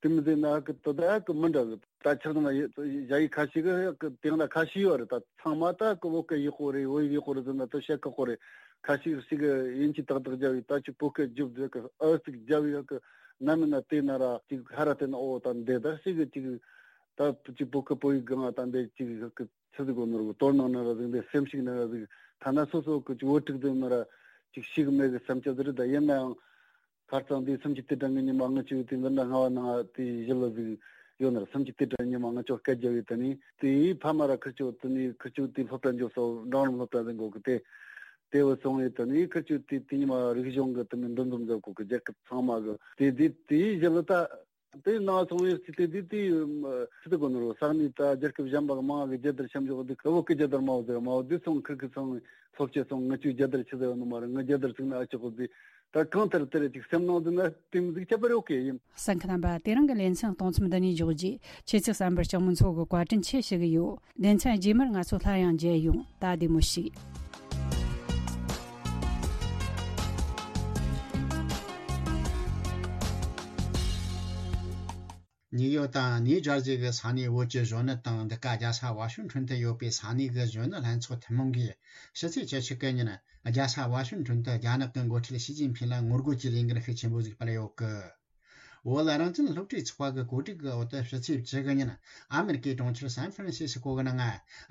དེ་མི་ཟེར་ན་ཧ་གི་དོ་ད་ཧ་གི་མི་འདྲ་གི། ད་ཆགས་ན་ཡ་ཡི་ཁ་ཤས་གི་ཧ་གི་དེང་ན་ཁ་ཤས་ཡོད་རེད། ད་ཚང་མ་ད་གི་བོད་སྐད་ཡག་པོ་རེད། བོད་ཡིག་ཡག་པོ་རེད་ཟེར་ན་དོ་བཤད་ཁག་པོ་རེད། ཁ་ཤས་ཤིག་གི་ཡིན་གཅིག་ཏག་ཏག་རྒྱབ་ཡི་ད་ཅིག་བོད་སྐད་རྒྱུབ་ཟེར་གི་ཨ་ཙིག་རྒྱབ་ཡི་ཧ་གི་ནམ་ཡིན་ན་དེ་ན་ར་ཅིག་ཧ་ར་དེ་ན་ཨོ་ད་འདི་ད་ཤིག་གི་ཅིག་ད་ཅིག་བོད་སྐད་བོད་ཡིག་གང་ད་འདི་ཅིག་ཧ་གི་ཆི་ཟིག་གོ་ནོར་གི་དོར་ནང་ན་ར་ཟིག་འདི་སེམས་ཤིག་ན་ར་ཟིག་ཐ་ན་སོ་སོ་གི་ཅིག་བོད་ཕྲུག་དེ་ན་ར་ཅིག་ཤིག་མེད་གི་བསམ་ཆ་ཟིག་རེད། ད་ཡིན་ན་ཡང་། ཁ་རྩང་དེ་སུམ་ཅུ་དུས་དྲན་གྱི་ཉི་མ་ང་ཆུ་དེ་འདི་འདྲ་སྔ་བ་ནང་དེ་ཞི་ལུ་ཟིག་ཡོད་ན་ར། སུམ་ཅུ་དུས་དྲན་ཉི་མ་ང་ཆོ་སྐད་རྒྱབ་ཡོད་ད་ནི་དེའི་ཕ་མ་ར་ཁིར་ཆུ་དེ་ནི་ཁིར་ཆུ་དེ་སློབ་གྲྭ་འཇོག་སོ་འབྲིང་རིམ་སློབ་གྲྭ་ཟིག་འགོ་གི་དེ་དེ་བུ་སོང་ཡོད་ད་ནི་ཁིར་ཆུ་དེ་དེ་ཉི་མ་རིག་གཞུང་གི་དེ་ནི་འདུ་འཛོམས་མཛད་གོ་གི་རྒྱལ་ཁབ་ཚང་མ་གི་དེ་དེ་དེའི་ཞི་ལུ་ད་དེ་ནང་སོང་ཡོད་སི་དེ་དེ་དེ་སི་དེ་གོ་ནོ་རོ་ས་གནས་ད་རྒྱལ་ཁབ་གཞན་པ་གི་མང་གི་རྒྱལ་དར་ཤམ་ཞོག་དེ་ཁ་བོ་གི་རྒྱལ་དར་མ་བོ་ཟེར་མ་བོ་དེ་སོང་ཁིར་གི་སོང་སློབ་ཆེ་སོང་ང་ཆུ་རྒྱལ་དར་ཆི་ཟེར་ནོ་མ་རེད། ང་རྒྱལ་དར་ཚིག་ན་ཨ་ཆོག་གོ་དེ། ད་གང་ལྟར་དེར་ཅིག་སེམས་ནང་དུ་ན་དེ་མི་ཟིག་ཁྱད་པར་ཡོད་གི་ཡིན། གསན་མཁན་རྣམ་པ་དེ་རིང་གི་ལེ་ཚན་གཏོང་མཚམས་འདི་ནས་འཇོག་རྗེས་ཁྱེད་ཚོས་གསན་པར་སྐྱང་མོ་མཚོ་གི་བཀའ་དྲིན་ཆེ་ཞུ་གི་ཡོད། ལེ་ཚན་རྗེས་མར་ང་ཚོ་སླར་ཡང་མཇལ་ཡོང་། ད་བདེ་མོ་བྱོས། ནིའུ་ཡོག་དང་ནིའུ་ཇར་ཟི་གི་ས་གནས་བོད་ཀྱི་གཞོན་ནུ་དང་འདི་ག་རྒྱལ་ས་ཝ་ཤིང་ཊོན་དུ་ཡོད་པའི་ས་གནས་གི་གཞོན་ནུ་ལྷན་ཚོགས་ཐུན་མོང་གིས་ཕྱི་ཚེས་བཅུ་གཅིག་གི་ཉིན་རྒྱལ་ས་ཝ་ཤིང་ཊོན་དུ་རྒྱ་ནག་གི་འགོ་ཁྲིད་ཞི་ཅིན་ཕིང་ལ་ངོ་རྒོལ་གྱི་ལས་འགུལ་ཤུགས་ཆེན་པོ་ཞིག་སྤེལ་ཡོད་གི། བོད་རང་བཙན་སློབ་གྲྭའི་ཚོགས་པ་གི་གོ་སྒྲིག་གི་འོག་ཏུ་ཕྱི་ཚེས་བཅུ་གི་ཉིན་ཨ་མེ་རི་ཀའི་གྲོང་ཁྱེར་སན་ཧྥ་རན་སི་སི་ཀོ་གི་ནང་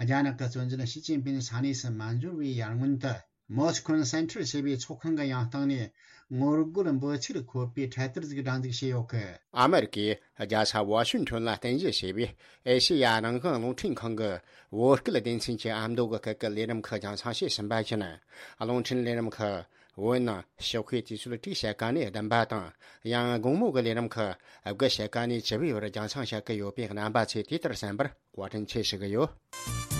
རྒྱ་ནག་གི་གཙོ་འཛིན་ཞི་ཅིན་ཕིང་ས་གནས་སུ་མ་འབྱོར་བའི་ཡར་སྔོན་དུ། མོ་སི་ཁོན་སེན་ཊར་ཞེས་པའི་ཚོགས་ཁང་གི་ཡང་སྟེང་ནས་ངོ་རྒོལ་འབོད་ཚིག་འཁོད་པའི་འཕྲེད་དར་ཞིག་སྒྲེང་འཛུགས་བྱས་ཡོད་གི། ཨ་མེ་རི་ཀའི་རྒྱལ་ས་ཝ་ཤིང་ཊོན་ལ་རྟེན་གཞི་བྱས་པའི་ཨེ་ཤེ་ཡ་རང་དབང་རླུང་འཕྲིན་ཁང་གི་བོད་སྐད་སྡེ་ཚན་གྱི་ཨ་མདོ་གི་སྐད་ཀྱི་ལས་རིམ་ཁག་རྒྱང་སྲིང་བྱས་ཟིན་པ་བཞིན། རླུང་འཕྲིན་ལས་རིམ་ཁག་བོད་ནང་ཞོགས་ཀའི་དུས་ཚོད་དྲུག་ཕྱེད་ཀ་ནས་བདུན་པ་དང་། ཡང་དགོང་མོ་གི་ལས་རིམ་ཁག་དགུ་ཕྱེད་ཀ་ནས་བཅུ་པའི་བར་རྒྱང་སྲིང་བྱེད་ཀྱི་ཡོད་པས། རྣམ་པ་ཚོས་དེ་ལྟར་གསན་པར་བཀའ་དྲིན་ཆེ་ཞུ་གི་ཡོད།